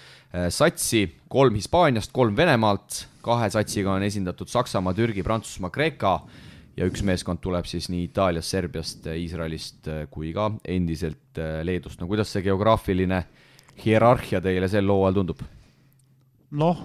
satsi, 3 Hispaaniast, 3 Venemaalt, 2 satsiga on esindatud Saksamaa, Türgi, Prantsusmaa, Kreeka ja 1 meeskond tuleb siis nii Itaaliast, Serbiast, Iisraelist kui ka endiselt Leedust. No kuidas see geograafiline hierarhia teile sel hooajal tundub? Noh,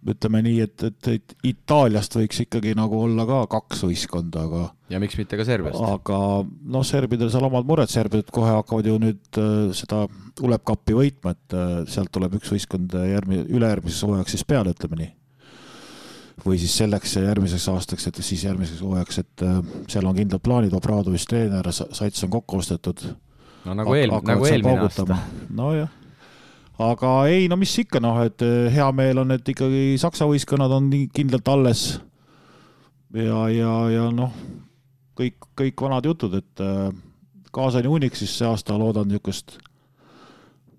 ütleme nii, et Itaaliast võiks ikkagi nagu olla ka 2 võistkonda, aga ja miks mitte ka Serbiast? Aga noh, serbidel seal omad mured, serbid kohe hakkavad ju nüüd seda ulepkappi võitma, et sealt tuleb 1 võistkond ülejärgmises hooajaks siis peale, ütleme nii. Või siis selleks järgmiseks aastaks, et siis järgmiseks hooajaks, et seal on kindlad plaanid, Obradovis treener, sats on kokku ostetud. No nagu eelmine aasta. No jah. Aga ei, no mis ikka, et hea meel on, et ikkagi Saksa võistkonnad on kindlalt alles ja noh, kõik vanad jutud, et Kaasani Unixis see aasta loodan niisugust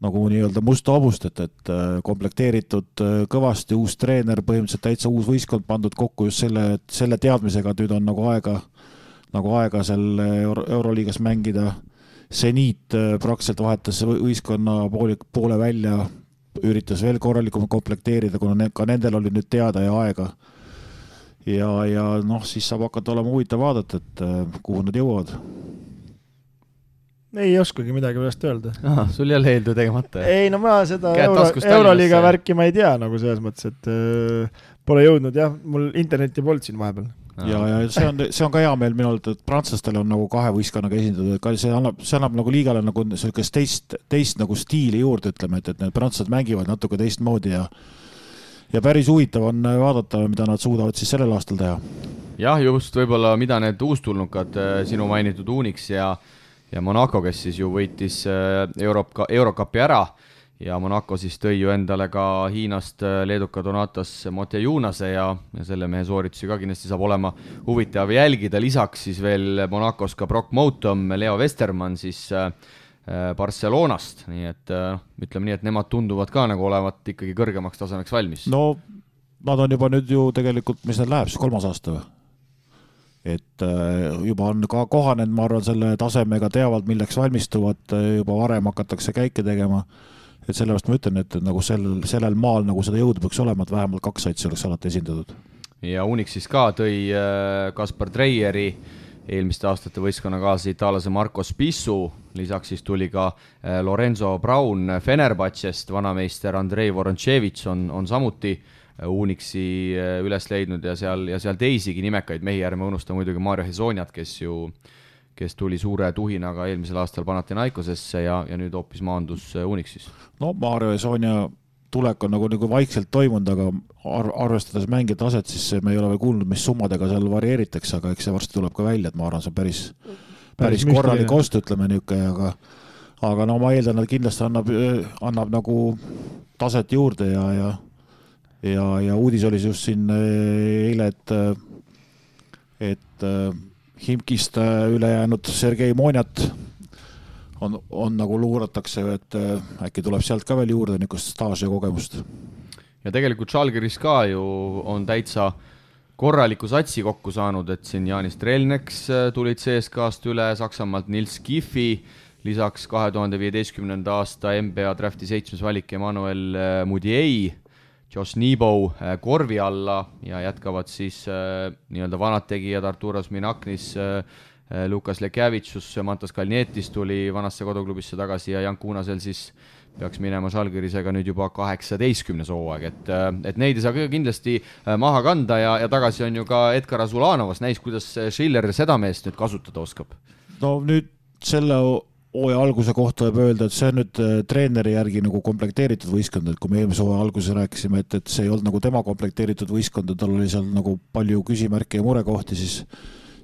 nagu nii-öelda musta hobust, et komplekteeritud kõvasti uus treener, põhimõtteliselt täitsa uus võistkond pandud kokku just selle teadmisega, et nüüd on nagu aega seal Euroliigas mängida. Seniit praktiliselt vahetas võistkonna poole välja, üritas veel korralikult komplekteerida, kuna ka nendel oli nüüd teada ja aega. Ja noh, siis saab hakata olema huvitav vaadata, et kuhu nad jõuavad. Ei oskagi midagi pärast öelda. Sul jälle eeldu tegemata. Ei, no ma seda Euroliiga värki ma ei tea nagu selles mõttes, et pole jõudnud, jah, mul interneti polnud siin vahepeal. ja see on ka hea meel minu arvates, et prantslastel on nagu kahe võistkonnaga esindatud, et see annab nagu liigale nagu sellist teist nagu stiili juurde, ütleme, et need prantslased mängivad natuke teistmoodi ja päris huvitav on vaadata, mida nad suudavad siis sellel aastal teha. Jah, just võib-olla mida need uustulnukad, sinu mainitud Unix ja Monaco, kes siis ju võitis Eurocupi ära ja Monaco siis tõi ju endale ka Hiinast leeduka Donatas Motejunase ja selle mehe sooritusi ka kindlasti saab olema huvitav jälgida. Lisaks siis veel Monacos ka Brock Moutom, Leo Westermann siis Barcelonast, nii et ütleme nii, et nemad tunduvad ka nagu olevat ikkagi kõrgemaks tasemeks valmis. No nad on juba nüüd ju tegelikult, mis need läheb, 3. aasta või? Et juba on ka kohanenud, ma arvan, selle tasemega teavad, milleks valmistuvad, juba varem hakatakse käike tegema. Et sellepärast ma ütlen, et nagu sellel maal nagu seda jõudu peaks olema, et vähemalt 2 satsi oleks alati esindatud. Ja Unix siis ka tõi Kaspar Treieri eelmiste aastate võistkonna kaasa itaalase Marco Spissu, lisaks siis tuli ka Lorenzo Braun Fenerbahcest, vanameister Andrei Voronchevich on samuti Unixi üles leidnud ja seal teisigi nimekaid mehi, ärme unusta muidugi Mario Hezoniat, kes tuli suure tuhinaga eelmisel aastal Panathinaikosesse ja nüüd hoopis maandus Unixis. No Mario Hezonia tulek on nagu vaikselt toimunud, aga arvestades mängija taset, siis me ei ole veel kuulnud, mis summadega seal varieeritakse, aga eks see varsti tuleb ka välja, et ma arvan, see on päris korralik ost, ütleme niisugune, aga no ma eeldan, et kindlasti annab nagu taset juurde ja uudis oli just siin eile, et Himkist üle jäänud Sergei Monjat on nagu luuratakse, et äkki tuleb sealt ka veel juurde niisugust staaži ja kogemust. Ja tegelikult Žalgiris ka ju on täitsa korraliku satsi kokku saanud, et siin Jaanis Trelneks tulid CSKA-st üle, Saksamaalt Nils Kiffi, lisaks 2015. aasta NBA drafti 7. valik Emmanuel Mudiei, Josh Nebo korvi alla ja jätkavad siis nii-öelda vanad tegijad Arturas Minaknis, Lukas Lekjavitsus, Mantas Kalnietis tuli vanasse koduklubisse tagasi ja Jan Kuunasel siis peaks minema Žalgirisega nüüd juba 18. hooaeg, et neid ei saa kindlasti maha kanda ja tagasi on ju ka Edgar Azulanovas, näis, kuidas Schiller seda meest nüüd kasutada oskab. No nüüd selle hooaja alguse kohta võib öelda, et see on nüüd treeneri järgi nagu komplekteeritud võistkond, et kui me eelmise hooaja alguses rääkisime, et see ei olnud nagu tema komplekteeritud võistkond, tal oli seal nagu palju küsimärke ja murekohti, siis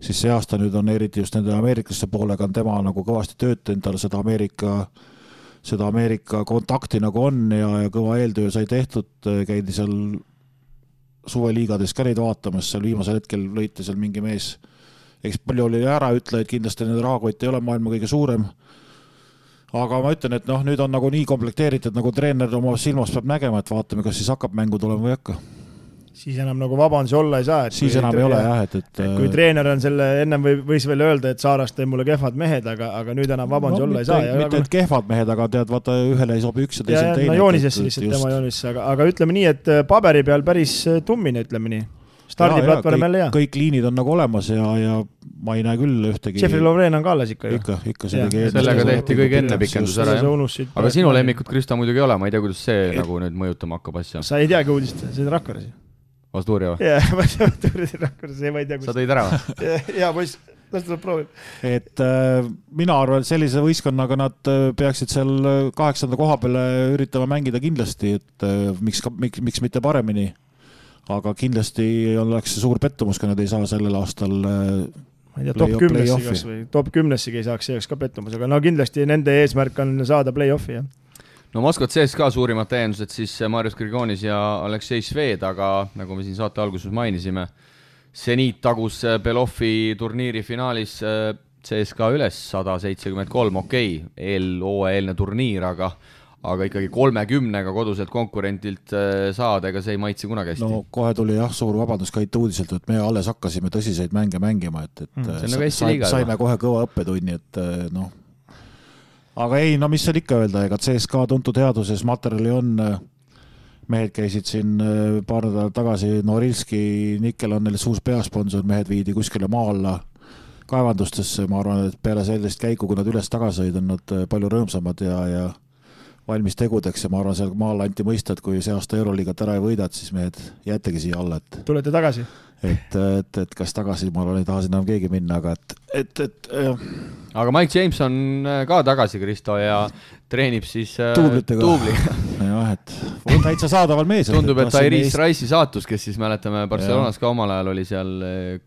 see aasta nüüd on eriti just nende ameeriklaste poolega on tema nagu kõvasti töötanud, tal seda Ameerika kontakti nagu on ja kõva eeltöö sai tehtud, käidi seal suveliigades ka neid vaatamas, seal viimasel hetkel lõite seal mingi mees, eks palju oli ära ütle, et kindlasti nende rahakott ei ole maailma kõige suurem, aga ma ütlen, et nüüd on nagu nii komplekteeritud, nagu treener oma silmas peab nägema, et vaatame, kas siis hakkab mängu tulema või hakka. Siis enam nagu vabandusi olla ei saa. Siis enam ei ole jah, et kui treener on selle, ennem võis veel öelda, et Saarast tõi mulle kehvad mehed, aga nüüd enam vabandusi olla ei saa. Mitte et kehvad mehed, aga tead, vaata ühele ei sobi üks ja teisel teine. Joonisesse lihtsalt tema joonisesse, aga ütleme nii, et paberi peal päris tummine, ütleme nii. Stardiplatvorm jälle hea. Kõik liinid on nagu olemas ja ma ei näe küll ühtegi. Jeffrey Lovren on ka alles ikka ju. Ikka sellega tehti kõige enne pikendus ära. Aga sinu lemmikut Krista muidugi ei ole, ma ei tea, kuidas see nagu nüüd mõjutama hakkab asja. Sa ei teagi uudist, see on Rakveres. Vastuuria või? Jah, Vastuuria Rakveres, ma ei tea, sa tõid ära või? Jaa, poiss, las tuleb proovib. Et mina arvan, et sellise võistkonnaga nad peaksid seal 8. koha peale üritama mängida kindlasti, et miks mitte paremini. Aga kindlasti oleks suur pettumus, kui nad ei saa sellel aastal ma ei tea, top 10-sigi ei saaks, see oleks ka pettumus, aga kindlasti nende eesmärk on saada play-offi, jah. No Moskvat CSKA suurimad täiendused siis Marius Grigonis ja Aleksei Sved, aga nagu me siin saate alguses mainisime, Zenit tagus Beloffi turniiri finaalis CSKA üles 173, eelne turniir, aga ikkagi 30-ga koduselt konkurentilt saada, ega see ei maitsi kunagi hästi. No kohe tuli jah suur vabandus ka uudiselt, et me alles hakkasime tõsiseid mänge mängima, et saime kohe kõva õppetunni, et aga ei, mis seal ikka öelda, ega CSKA tuntud headuses materjali on, mehed käisid siin paar nädalat tagasi, Norilski, Nikkel on neil suus peasponsor, mehed viidi kuskile maa alla kaevandustesse, ma arvan, et peale sellist käiku, kui nad üles tagasi sõid, on nad palju rõõmsamad ja valmis tegudeks ja ma arvan, seal maal anti mõista, et kui see aasta Euroliigat ära ei võidad, siis mehed jäetegi siia alla, et tulete tagasi? Et kas tagasi, ma ei taha sinna keegi minna, aga aga Mike James on ka tagasi, Kristo, ja treenib siis Tuublitega. Tuubliga. jah, et täitsa saadaval mees. Tundub, et Iris Rice'i saatus, kes siis mäletame Barcelonas ka omal ajal oli seal,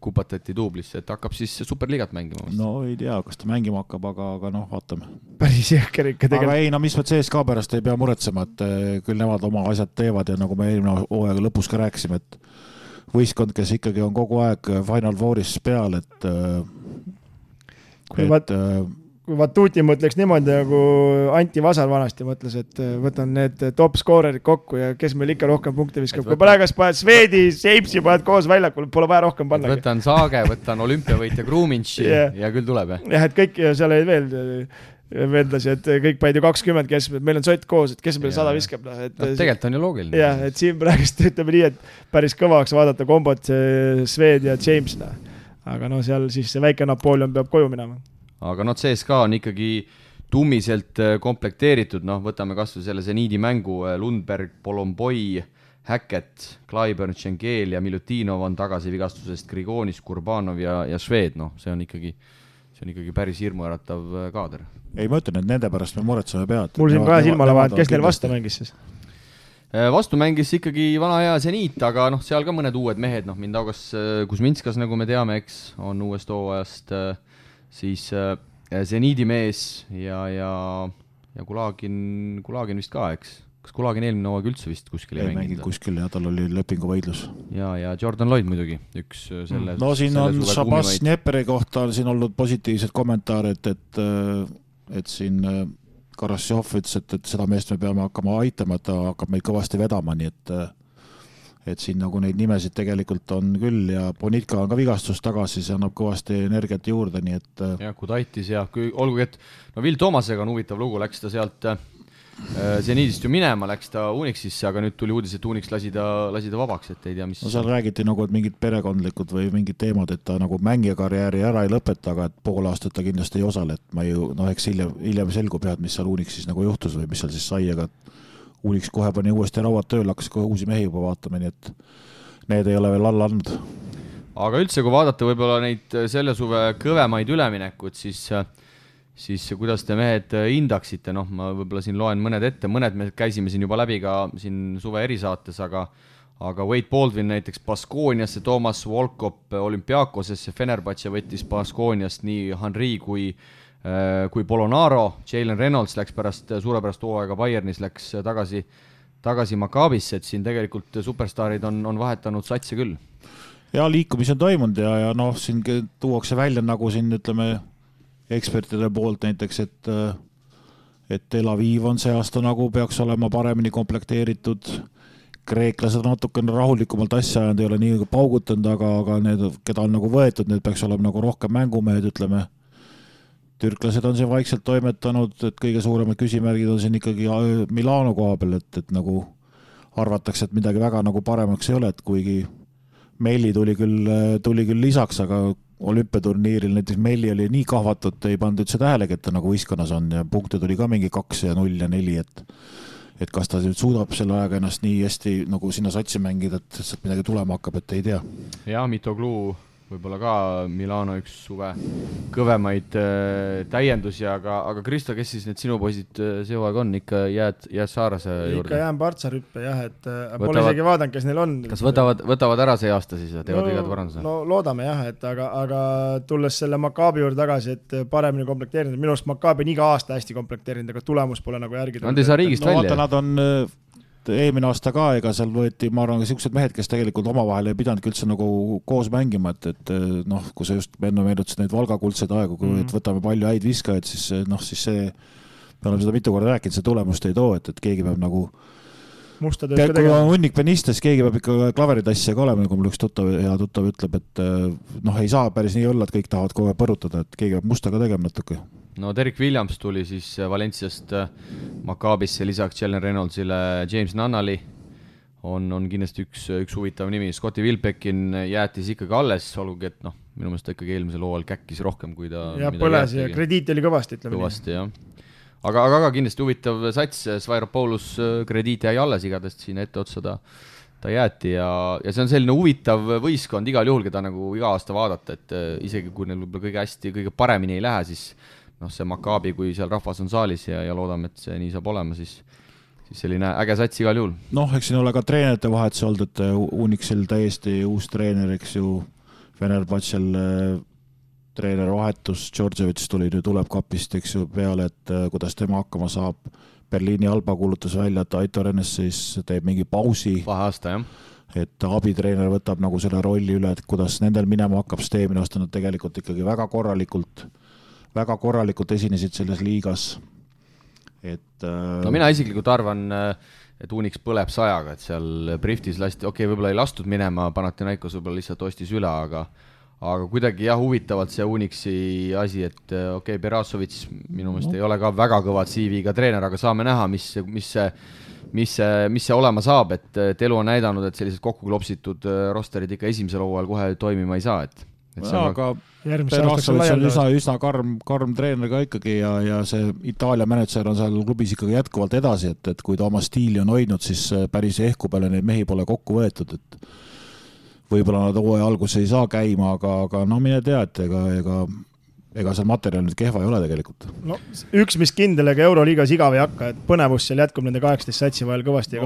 kupatati Tuublisse, et hakkab siis Superliigat mängima. No ei tea, kas ta mängima hakkab, aga noh, vaatame. Päris jõhker ikka tegelikult. Aga ei, no mis me CSKA pärast ei pea muretsema, et küll nemad oma asjad teevad ja nagu me eelmine hooaega lõpus ka rääkisime, et võistkond, kes ikkagi on kogu aeg Final Fouris peal, et kui Vatuti mõtleks niimoodi, nagu Anti Vasar vanasti mõtles, et võtan need top scorerid kokku ja kes meil ikka rohkem punkte viskab. Kui praegas paned Swedi, Seipsi paned koos väljakul, pole vaja rohkem panna. Võtan Saage, võtan olümpiavõitja Gruminši ja küll tuleb. Jah, et kõik seal ei veendasi, et kõik panid ju 20 keskmed, meil on sott koos, et kes meil 100 viskab. Tegelikult on ju loogiline. Jah, et siin praegust ütleme nii, et päris kõvaks vaadata kombot Swed ja James. Aga no seal siis see väike Napoleon peab koju minema. Aga CSKA on ikkagi tummiselt komplekteeritud, võtame kas või selle Zeniidi mängu, Lundberg, Polomboi, Hackett, Clyburn, Schengel ja Milutinov on tagasi vigastusest, Grigonis, Kurbanov ja Šved, see on ikkagi päris hirmuäratav kaader. Ei, ma ütlen, et nende pärast me muretseme pead. Mul siin kahe silmale vahet, kes neil vastu mängis siis? Vastu mängis ikkagi vana hea Zeniit, aga seal ka mõned uued mehed, Mindaugas Kuzminskas, nagu me teame, eks, on uuest hooajast, siis Zeniidi mees ja Kulagin vist ka, eks? Kas Kulagin eelmine hooaeg üldse vist kuskil ei mänginud? Kuskil ja tal oli lepingu võidlus. Ja Jordan Lloyd muidugi, üks selle no siin on Šabas Dneperi kohta siin olnud positiivsed kommentaarid, et siin Karassjov ütles, et seda meest me peame hakkama aitama, et ta hakkab meid kõvasti vedama, nii et siin nagu neid nimesid tegelikult on küll ja Bonitka on ka vigastus tagasi, see annab kõvasti energiat juurde, nii et ja Kudaitis ja olgugi, et Will Thomasega on huvitav lugu, läks ta sealt Zeniidist ju minema, läks ta Unixisse, aga nüüd tuli uudis, et Unix lasi ta vabaks, et ei tea, mis... No seal räägiti nagu, et mingid perekondlikud või mingid teemad, et ta nagu mängija karjääri ära ei lõpeta, aga et pool aastat ta kindlasti ei osale, et ma ju, eks hiljem selgub head, mis seal Unixis nagu juhtus või mis seal siis sai, aga Unix kohe pani uuesti rauad tööl, hakkas kohe uusi mehi juba vaatama, nii et need ei ole veel alla andnud. Aga üldse, kui vaadata võib-olla neid selle suve kõvemaid üleminekud, siis kuidas te mehed hindaksite, ma võib-olla siin loen mõned ette, mõned me käisime siin juba läbi ka siin suve erisaates, aga Wade Baldwin näiteks Baskooniasse, Toomas Volkop Olümpiakosesse, Fenerbahce võttis Baskooniast nii Henri kui Polonaro, Jalen Reynolds läks suurepärast hooaega Bayernis, läks tagasi Maccabisse, et siin tegelikult superstaarid on vahetanud satsi küll. Ja liikumisi on toimunud ja siin tuuakse välja nagu siin ütleme ekspertide poolt näiteks, et Tel Aviv on see aasta nagu peaks olema paremini komplekteeritud. Kreeklased on natukene rahulikumalt asja ajanud, ei ole nii paugutanud, aga need, keda on nagu võetud, need peaks olema nagu rohkem mängumehed, ütleme. Türklased on siin vaikselt toimetanud, et kõige suuremad küsimärgid on siin ikkagi Milano koha peal, et nagu arvatakse, et midagi väga nagu paremaks ei ole, et kuigi Melli tuli küll lisaks, aga olümpiaturniiril näiteks Melli oli nii kahvatud, ei pannud üldse tähelegi, et ta nagu võistkonnas on ja punkte tuli ka mingi 2 ja 0 ja 4, et kas ta nüüd suudab selle ajaga ennast nii hästi nagu sinna satsi mängida, et sealt midagi tulema hakkab, et ei tea. Ja Mitoglu võib-olla ka Milano üks suve kõvemaid täiendusi, aga Kristo, kes siis need sinu poisid see hooaeg on, ikka jääd Saarase juurde? Ikka jään Partsarüppe, jah, et pole isegi vaadanud, kes neil on. Kas võtavad ära see aasta siis ja teevad igad paranduse? No loodame jah, et aga tulles selle Maccabi juurde tagasi, et paremini komplekteerinud, minu arust Maccabi on iga aasta hästi komplekteerinud, aga tulemus pole nagu järgi. Nad ei saa riigist välja. Vaata, nad on eelmine aasta ka, ega seal võeti, ma arvan, siuksed mehed, kes tegelikult omavahel ei pidanud üldse nagu koos mängima, et kui sa just enne meenutasid neid Valga kuldseid aegu, kui võtame palju häid viskajaid, siis see, me oleme seda mitu korda rääkinud, see tulemust ei too, et keegi peab nagu kui on hunnik penistes, keegi peab ikka klaveritassija ka olema, nagu mul üks hea tuttav ütleb, et ei saa päris nii olla, et kõik tahavad kogu aeg põrutada, et keegi peab musta ka tegema natuke. No Derek Williams tuli siis Valenciast Maccabisse lisaks Jalen Reynoldsile, James Nunnally on kindlasti üks huvitav nimi. Scotti Wilbekin jäetis ikkagi alles, olgugi, et minu meelest ta ikkagi eelmisel hooajal käkkis rohkem, kui ta ja põles ja krediit oli kõvasti, ütleme. Kõvasti, jah. aga kindlasti huvitav sats, Svairopoulos krediit jäi alles igadest siin ette otsa ta jäeti ja see on selline huvitav võistkond igal juhul, keda nagu iga aasta vaadata, et isegi kui neil võib-olla kõige paremini ei lähe, siis see Maccabi, kui seal rahvas on saalis ja loodame, et see nii saab olema, siis selline äge sats igal juhul. Eks siin ole ka treenerite vahetuse olnud, et Unixil täiesti uus treener, eks ju, Fenerbahcel treener vahetus, Djordjevic tuleb kapist, eks ju, peale, et kuidas tema hakkama saab. Berliini Alba kuulutas välja, et Aitor Ennes siis teeb mingi pausi. Vaheaasta, jah. Et abitreener võtab nagu selle rolli üle, et kuidas nendel minema hakkab, sest eelmine aasta nad tegelikult ikkagi väga korralikult esinesid selles liigas. No mina isiklikult arvan, et Unix põleb 100-ga, et seal Briftis lasti, võib-olla ei lastud minema, Panathinaikos võib-olla lihtsalt ostis üle, aga kuidagi huvitavalt see Unixi asi, et Berasovits minu meelest ei ole ka väga kõvad CV-ga treener, aga saame näha, mis see olema saab, et elu on näidanud, et sellised kokku klopsitud rosterid ikka esimesel hooajal kohe toimima ei saa, et aga Berasovits on üsna karm treener ka ikkagi ja see Itaalia manager on seal klubis ikkagi jätkuvalt edasi, et kui ta oma stiili on hoidnud, siis päris ehku peale neid mehi pole kokku võetud, et võib-olla nad hooaja alguses ei saa käima, aga no mine tea, et ega seal materjal nüüd kehva ei ole tegelikult. No, üks, mis kindel, ega Euroliigas igav ei hakka, et põnevus seal jätkub nende 18 satsi vahel kõvasti.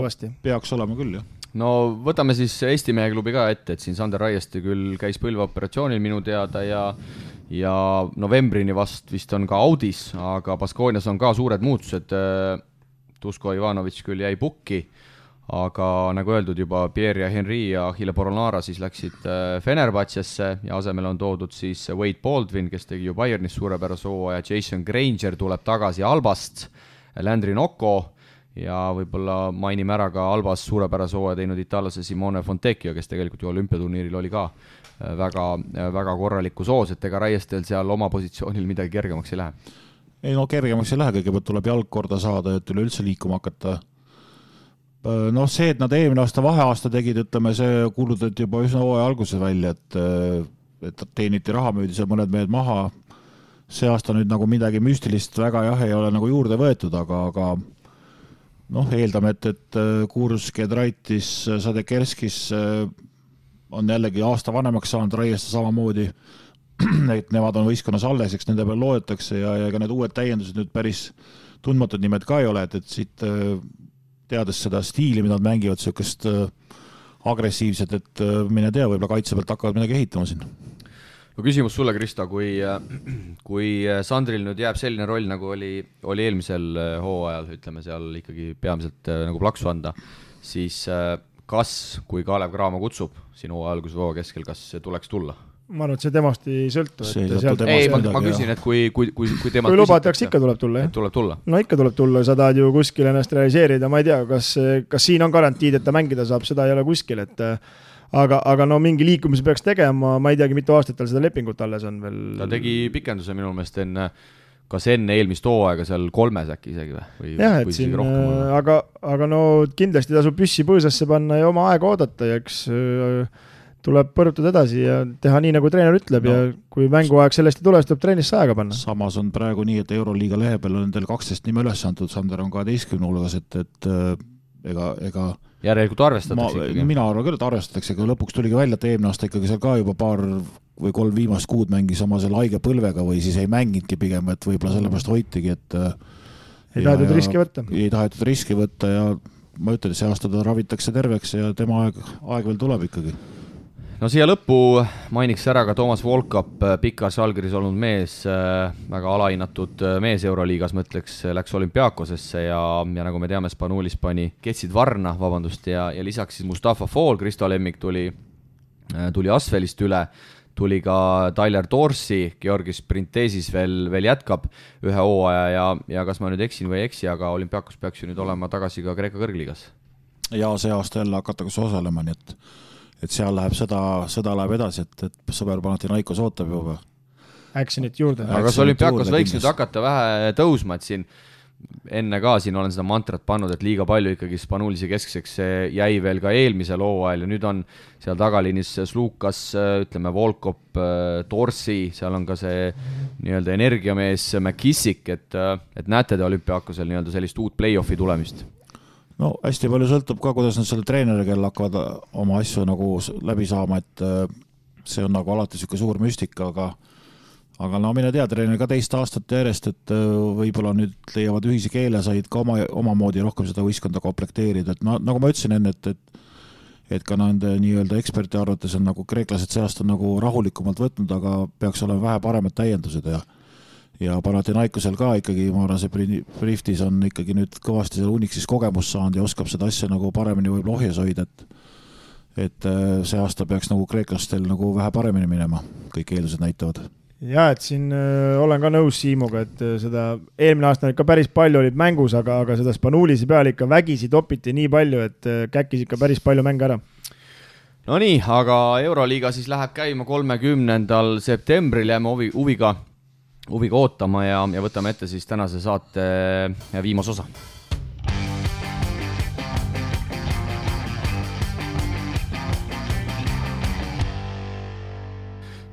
Peaks olema küll, jah. No võtame siis Eesti mehe klubi ka ette, et siin Sander Raieste küll käis põlveoperatsioonil minu teada ja novembrini vist on ka Audis, aga Baskoonias on ka suured muutused. Tusko Ivanovic küll jäi pukki, aga nagu öeldud juba Pierre ja Henri ja Achille Poronara siis läksid Fenerbahcesse ja asemele on toodud siis Wade Baldwin, kes tegi ju Bayernis suurepärase hooaja, Jason Granger tuleb tagasi Albast, Landry Nocco ja võib-olla mainime ära ka Albas suurepärase hooaja teinud itaallase Simone Fontecchio, kes tegelikult ju olümpiaturniiril oli ka väga korraliku soos, et ega Raiestel seal oma positsioonil midagi kergemaks ei lähe. Ei no kergemaks ei lähe, kõigepealt tuleb jalg korda saada, et üleüldse liikuma hakata. No see, et nad eelmine aasta vaheaasta tegid, ütleme, see kuulutati juba üsna hooaja alguses välja, et teeniti raha, müüdi seal mõned mehed maha. See aasta nüüd nagu midagi müstilist väga ei ole nagu juurde võetud, aga eeldame, et Kurs, Kedraitis, Sadekerskis on jällegi aasta vanemaks saanud, Raieste samamoodi, et nemad on võistkonnas alles, eks nende peal loodetakse ja ka need uued täiendused nüüd päris tundmatud nimed ka ei ole, et siit teades seda stiili, mida nad mängivad, sellist agressiivset, et mine tea, võib-olla kaitse pealt hakkavad midagi ehitama siin. No küsimus sulle, Kristo, kui Sandril nüüd jääb selline roll, nagu oli eelmisel hooajal, ütleme seal ikkagi peamiselt nagu plaksu anda, siis kas, kui Kalev Cramo kutsub sinu alguse hooaja keskel, kas tuleks tulla? Ma arvan, et see temast ei sõltu. Ma küsin, et kui temast kui lubatakse, ikka tuleb tulla, jah? Tuleb tulla. No ikka tuleb tulla, sa tahad ju kuskil ennast realiseerida, ma ei tea, kas siin on garantiid, et ta mängida saab, seda ei ole kuskil, et aga no mingi liikumise peaks tegema, ma ei teagi, mitu aastat tal seda lepingut alles on veel. Ta tegi pikenduse minu meelest kas enne eelmist hooaega seal 3 äkki isegi või? Jah, et siin, aga no kindlasti tasub püssi põõsasse panna ja oma aega oodata ja eks tuleb põrutada edasi ja teha nii, nagu treener ütleb ja kui mänguaeg sellest ei tule, siis tuleb treenist aega panna. Samas on praegu nii, et Euroliiga lehe peal on teil 12 nime üles antud, Sander on 12 hulgas, et ega järelikult arvestatakse ikkagi. Mina arvan küll, et arvestatakse, aga lõpuks tuligi välja, et eelmine aasta ikkagi seal ka juba 2 või 3 viimast kuud mängis oma selle haige põlvega või siis ei mänginudki pigem, et võib-olla sellepärast hoitigi, et ei tahetud riski võtta. Ei tahetud riski võtta ja ma ütlen, et see aasta ta ravitakse terveks ja tema aeg veel tuleb ikkagi. No siia lõppu mainiks ära ka Toomas Volkap, Pikas Žalgiris olnud mees, väga alahinnatud mees Euroliigas, mõtleks, läks Olümpiakosesse ja nagu me teame, Spanulis pani Ketsid Varna, ja lisaks siis Mustafa Fall, Kristo Lemmik tuli Asvelist üle, tuli ka Tyler Dorsey, Georgis Printesis veel jätkab ühe hooaja ja kas ma nüüd eksin või ei eksi, aga Olümpiakos peaks ju nüüd olema tagasi ka Kreeka kõrgliigas. Ja see aasta jälle hakatakse osalema, nii et seal läheb sõda läheb edasi, et sõber Panathinaikos ootab juba. Actionit juurde. Aga kas Olümpiakos võiks nüüd hakata vähe tõusma, et siin enne ka siin olen seda mantrat pannud, et liiga palju ikkagi Spanulise keskseks jäi veel ka eelmisel hooajal ja nüüd on seal tagaliinis Slukas, ütleme Volkop, Torsi, seal on ka see nii-öelda energiamees McKissick, et näete te olümpiaakosel nii-öelda sellist uut play-offi tulemist? No hästi palju sõltub ka, kuidas nad selle treeneri, kel hakkavad oma asju nagu läbi saama, et see on nagu alati siuke suur müstika, aga no mine tea, treener ka teist aastat järjest, et võib-olla nüüd leiavad ühise keele, said ka omamoodi rohkem seda võistkonda komplekteerida, et nagu ma ütlesin enne, et ka nende nii-öelda eksperti arvates on nagu kreeklased see aasta nagu rahulikumalt võtnud, aga peaks olema vähe paremad täiendused ja Panathinaikosel ka ikkagi, ma arvan, see Briftis on ikkagi nüüd kõvasti seal Unixis kogemust saanud ja oskab seda asja nagu paremini võib-olla ohjes hoida, et see aasta peaks nagu kreeklastel nagu vähe paremini minema, kõik eeldused näitavad. Ja, et siin olen ka nõus Siimuga, et seda eelmine aasta ikka päris palju olid mängus, aga seda Spanulisi peal ikka vägisi topiti nii palju, et käkkis ikka päris palju mänge ära. No nii, aga Euroliiga siis läheb käima 30. septembril, jääme huviga ootama ja võtame ette siis tänase saate viimase osa.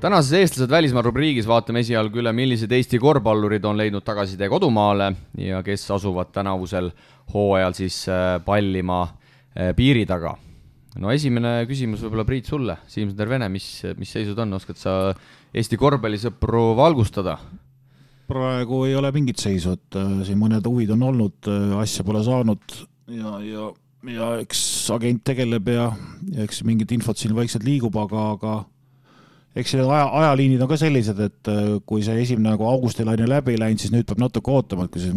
Tänases eestlased välismaal rubriigis vaatame esialgu üle, millised Eesti korvpallurid on leidnud tagasitee kodumaale ja kes asuvad tänavusel hooajal siis pallima piiri taga. No esimene küsimus võib-olla Priit sulle, Siim Tervene, mis seisud on, oskad sa Eesti korvpallisõpru valgustada? Praegu ei ole mingit seisu, et siin mõned huvid on olnud, asja pole saanud ja eks agent tegeleb ja eks mingit infot siin vaikselt liigub, aga eks need ajaliinid on ka sellised, et kui see esimene nagu augustilaine läbi läinud, siis nüüd peab natuke ootama, et kui siin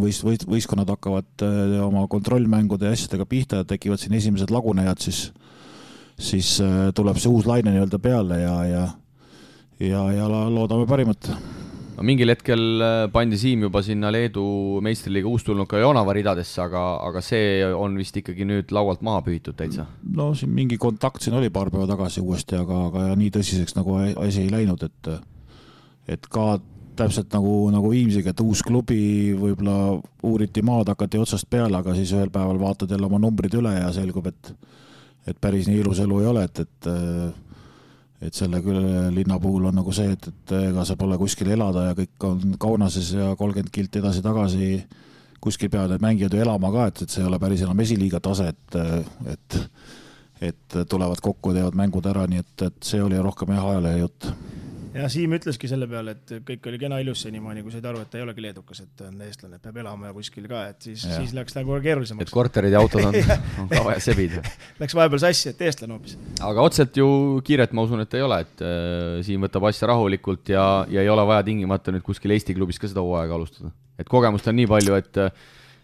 võistkonnad hakkavad oma kontrollmängude ja asjadega pihta ja tekivad siin esimesed lagunejad, siis tuleb see uus laine nii-öelda peale ja loodame parimat. No, mingil hetkel pandi Siim juba sinna Leedu meistriliiga uustulnuka Jonava ridadesse, aga see on vist ikkagi nüüd laualt maha pühitud täitsa. No siin mingi kontakt siin oli paar päeva tagasi uuesti, aga nii tõsiseks nagu asi ei läinud, et ka täpselt nagu Viimsiga, et uus klubi võib-olla uuriti maad, hakati otsast peale, aga siis ühel päeval vaatad jälle oma numbrid üle ja selgub, et päris nii ilus elu ei ole, et selle küll linna puhul on nagu see, et ega sa pole kuskil elada ja kõik on Kaunases ja 30 kilti edasi-tagasi kuskil peavad need mängijad ju elama ka, et see ei ole päris enam esiliiga tase, et tulevad kokku ja teevad mängud ära, nii et see oli rohkem ajalehe jutt. Ja Siim ütleski selle peale, et kõik oli kena ilus senimaani, kui said aru, et ta ei olegi leedukas, et on eestlane, peab elama ja kuskil ka, et siis läks nagu keerulisemaks. Et korterid ja autod on ka vaja sebida. Läks vahepeal sassi, et eestlane hoopis. Aga otselt ju kiiret ma usun, et ei ole, et Siim võtab asja rahulikult ja ei ole vaja tingimata nüüd kuskil Eesti klubis ka seda hooaega alustada. Et kogemust on nii palju,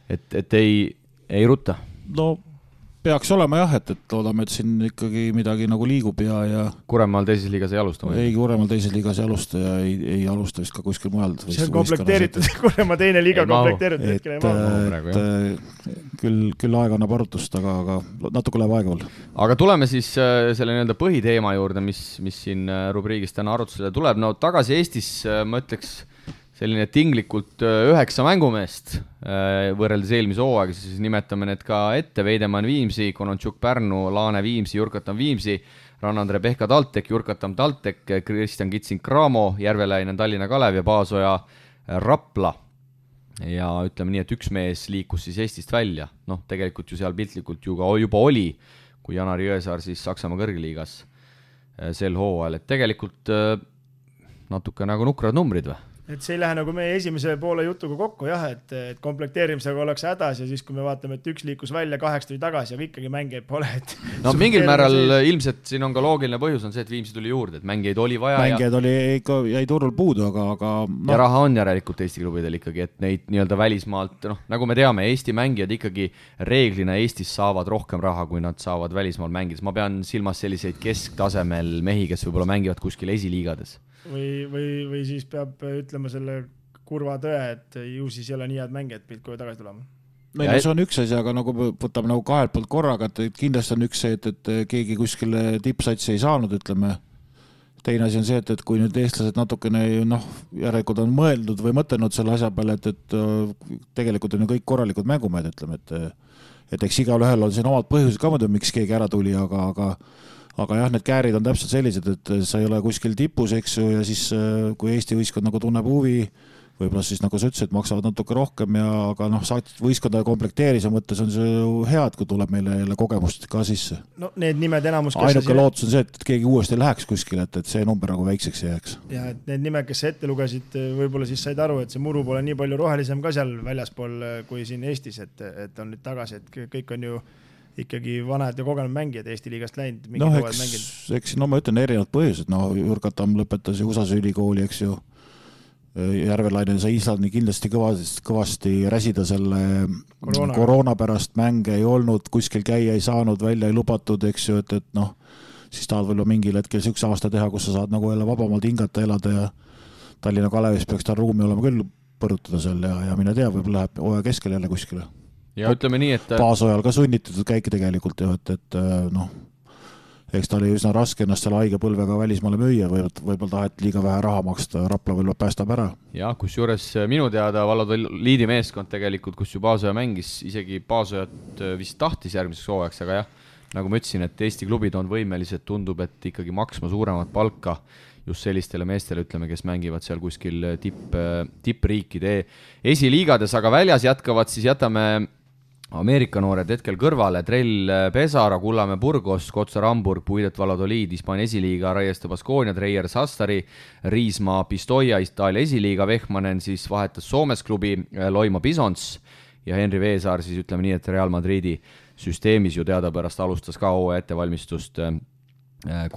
et ei rutta. No peaks olema jah, et loodame, et siin ikkagi midagi nagu liigub ja Kuremaal teises liigas ei alusta? Ei, Kuremaal teises liigas ei alusta ja ei alusta vist ka kuskil mujal. See on komplekteeritud, Kuremaal teine liiga komplekteeritud. Küll aeg annab arutust, aga natuke läheb aega veel. Aga tuleme siis selle nii-öelda põhiteema juurde, mis siin rubriigis täna arutusele tuleb. No tagasi Eestis, ma ütleks, selline tinglikult 9 mängumeest võrreldes eelmise hooaega, siis nimetame need ka ette: Veidemann Viimsi, Konontšuk Pärnu, Laane Viimsi, Jurkatan Viimsi, Rannandre Pehka TalTech, Jurkatam TalTech, Kristjan Kitsing Cramo, Järveläinen Tallinna Kalev ja Paasoja Rapla. Ja ütleme nii, et üks mees liikus siis Eestist välja. Noh, tegelikult ju seal piltlikult juba oli, kui Janari Jõesaar siis Saksamaa kõrgliigas sel hooajal, et tegelikult natuke nagu nukrad numbrid või? Et see ei lähe nagu meie esimese poole jutuga kokku, jah, et komplekteerimisega oleks hädas ja siis, kui me vaatame, et üks liikus välja, 8 tuli tagasi, aga ikkagi mängijaid pole. No mingil määral ilmselt siin on ka loogiline põhjus on see, et Viimsi tuli juurde, et mängijaid oli vaja. Mängijaid oli ikka, jäi turul puudu, aga ja raha on järelikult Eesti klubidel ikkagi, et neid nii-öelda välismaalt, nagu me teame, Eesti mängijad ikkagi reeglina Eestis saavad rohkem raha, kui nad saavad välismaal mängides. Ma pean silmas selliseid kesktasemel mehi, kes võib-olla mängivad kuskil esiliigades. Või siis peab ütlema selle kurva tõe, et ju siis ei ole nii head mängijad pilt, kui tagasi tulema. No, see on üks asi, aga nagu võtame nagu kahelt poolt korraga, et kindlasti on üks see, et keegi kuskile tippsatsi ei saanud, ütleme, teine asi on see, et kui nüüd eestlased natukene järelikult on mõeldud või mõtelnud selle asja peale, et tegelikult on ju kõik korralikud mängumehed, ütleme, et eks igal ühel on siin omad põhjused ka muidu, miks keegi ära tuli, aga jah, need käärid on täpselt sellised, et sa ei ole kuskil tipus, eks ju, ja siis kui Eesti võistkond nagu tunneb huvi, võib-olla siis nagu sa ütlesid, maksavad natuke rohkem aga võistkonda komplekteerise mõttes on see ju hea, et kui tuleb meile jälle kogemust ka sisse. No need nimed enamus, ainuke lootus on see, et keegi uuesti läheks kuskile, et see number nagu väikseks jääks. Ja et need nimed, kes ette lugesid, võib-olla siis said aru, et see muru pole nii palju rohelisem ka seal väljaspool kui siin Eestis, et on nüüd tagasi, et kõik on ju ikkagi vanad ja kogenud mängijad Eesti liigast läinud. Eks ma ütlen erinevad põhjused, Jurkatam lõpetas ju USA ülikooli, eks ju. Järvelainen sai Islandi kindlasti kõvasti räsida selle koroona pärast, mänge ei olnud, kuskil käia ei saanud, välja ei lubatud, eks ju, et siis tahad võib-olla mingil hetkel üks aasta teha, kus sa saad nagu jälle vabamalt hingata, elada ja Tallinna Kalevis peaks tal ruumi olema küll põrutada seal ja mine tea, võib-olla läheb hooaja keskel jälle kuskile. Ja ütleme nii, et baasojal ka sunnitud käike tegelikult ju, et eks ta oli üsna raske ennast selle haige põlvega välismaale müüa, võib-olla taheti liiga vähe raha maksta, Rapla võib-olla päästab ära. Ja, kus juures minu teada Valladoliidi meeskond tegelikult, kus ju Baasoja mängis, isegi Baasojat vist tahtis järgmiseks hooajaks, aga jah, nagu ma ütlesin, et Eesti klubid on võimelised, tundub, et ikkagi maksma suuremat palka just sellistele meestele, ütleme, kes mängivad seal kuskil tippriikide esiliigades, aga väljas jätame Ameerika noored hetkel kõrvale, Trell Pesara, Kullamäe Burgos, Kotsar Hamburg, Puidet Valladoliid, Hispaania esiliiga, Raieste Baskonia, Treier Sassari, Riismaa Pistoia, Itaalia esiliiga, Vehmanen siis vahetas Soomes klubi Loima Bisons ja Henri Veesaar siis ütleme nii, et Real Madridi süsteemis ju teadapärast alustas ka hooaja ettevalmistust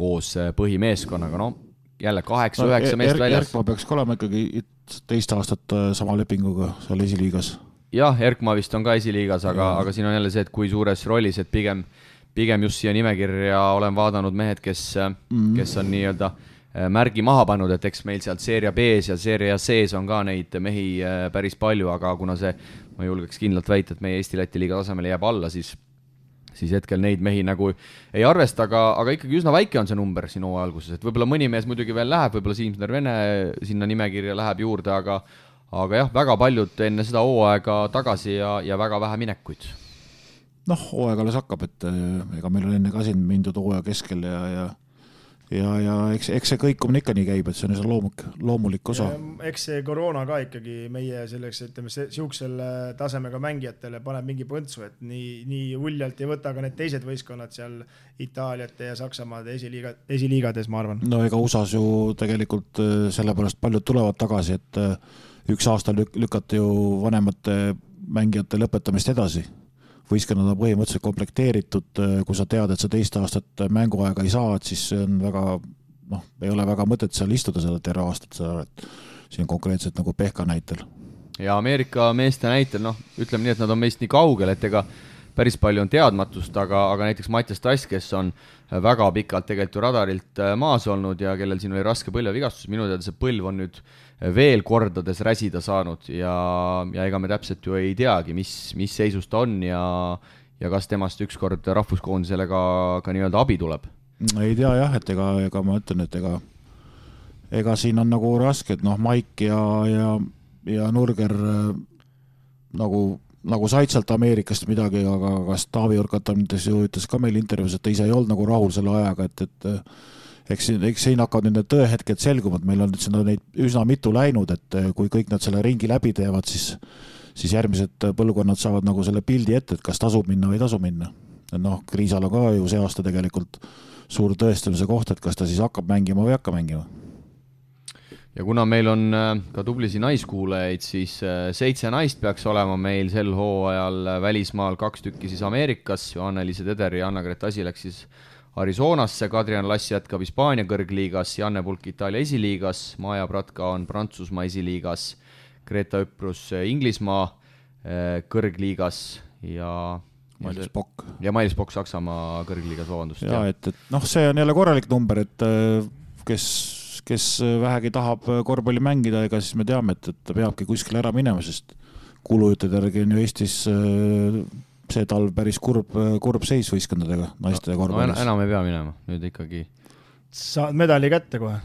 koos põhimeeskonnaga, jälle 8-9 meest väljas. Erkma peaks olema ikkagi teist aastat sama lepinguga seal esiliigas. Jah, Erkma vist on ka esiliigas, aga siin on jälle see, et kui suures rollis, et pigem just siia nimekirja olen vaadanud mehed, kes on nii-öelda märgi maha pannud, et eks meil sealt Seeria B-s ja Seeria C-s on ka neid mehi päris palju, aga kuna see, ma julgeks kindlalt väita, et meie Eesti-Läti liiga tasemele jääb alla, siis hetkel neid mehi nagu ei arvesta, aga ikkagi üsna väike on see number siin hooaja alguses, et võib-olla mõni mees muidugi veel läheb, võib-olla Siimsner Vene sinna nimekirja läheb juurde, aga jah, väga paljud enne seda hooaega tagasi ja väga vähe minekuid. Hooaeg alles hakkab, et ega meil on enne ka siin mindud hooaja keskel ja eks see kõikumine ikka nii käib, et see on loomulik osa. Eks see koroona ka ikkagi meie selleks, ütleme, siuksel tasemega mängijatele paneb mingi põntsu, et nii uljalt ei võta ka need teised võistkonnad seal Itaaliate ja Saksamaade esiliigades, ma arvan. Ega USAs ju tegelikult sellepärast paljud tulevad tagasi, et üks aasta lükati ju vanemate mängijate lõpetamist edasi. Võistkonnad on põhimõtteliselt komplekteeritud, kui sa tead, et sa teist aastat mänguaega ei saa, et siis on väga, ei ole väga mõtet seal istuda seda terve aastat, et siin konkreetselt nagu Pehka näitel. Ja Ameerika meeste näitel, ütleme nii, et nad on meist nii kaugel, et ega päris palju on teadmatust, aga näiteks Mattias Tass, kes on väga pikalt tegelikult radarilt maas olnud ja kellel siin oli raske põlvevigastus, minu teada see põlv on nüüd veel kordades räsida saanud ja ega me täpselt ju ei teagi, mis seisus ta on ja kas temast ükskord rahvuskoondisele ka nii-öelda abi tuleb. Ei tea jah, et ega ma ütlen, et ega siin on nagu raske, et Maik ja Nurger nagu said sealt Ameerikast midagi, aga kas Taavi Urkatam ütles ka meil intervjuus, et ta ise ei olnud nagu rahul selle ajaga, et eks siin hakkavad need tõehetked selgumad, meil on neid üsna mitu läinud, et kui kõik nad selle ringi läbi teevad, siis järgmised põlvkonnad saavad nagu selle pildi ette, et kas tasub minna või ei tasu minna. Kriisal on ka ju see aasta tegelikult suur tõestamise koht, et kas ta siis hakkab mängima või hakka mängima. Ja kuna meil on ka tublisi naiskuulajaid, siis 7 naist peaks olema meil sel hooajal välismaal, 2 tükki siis Ameerikas, Johanna-Liise Teder ja Anna-Greta Asi läks siis Arizonasse, Kadrian Lass jätkab Hispaania kõrgliigas, Janne Pulk Itaalia esiliigas, Maja Pratka on Prantsusmaa esiliigas, Greta Üprus Inglismaa kõrgliigas ja Mailis Pokk. Ja Mailis Pokk Saksamaa kõrgliigas, vabandust. Ja, et see on jälle korralik number, et kes vähegi tahab korvpalli mängida, ega siis me teame, et ta peabki kuskil ära minema, sest kulujutud järgi on ju Eestis see talv päris kurb seis võistkondadega, naiste korvpallis. Enam ei pea minema, nüüd ikkagi saad medali kätte kohe.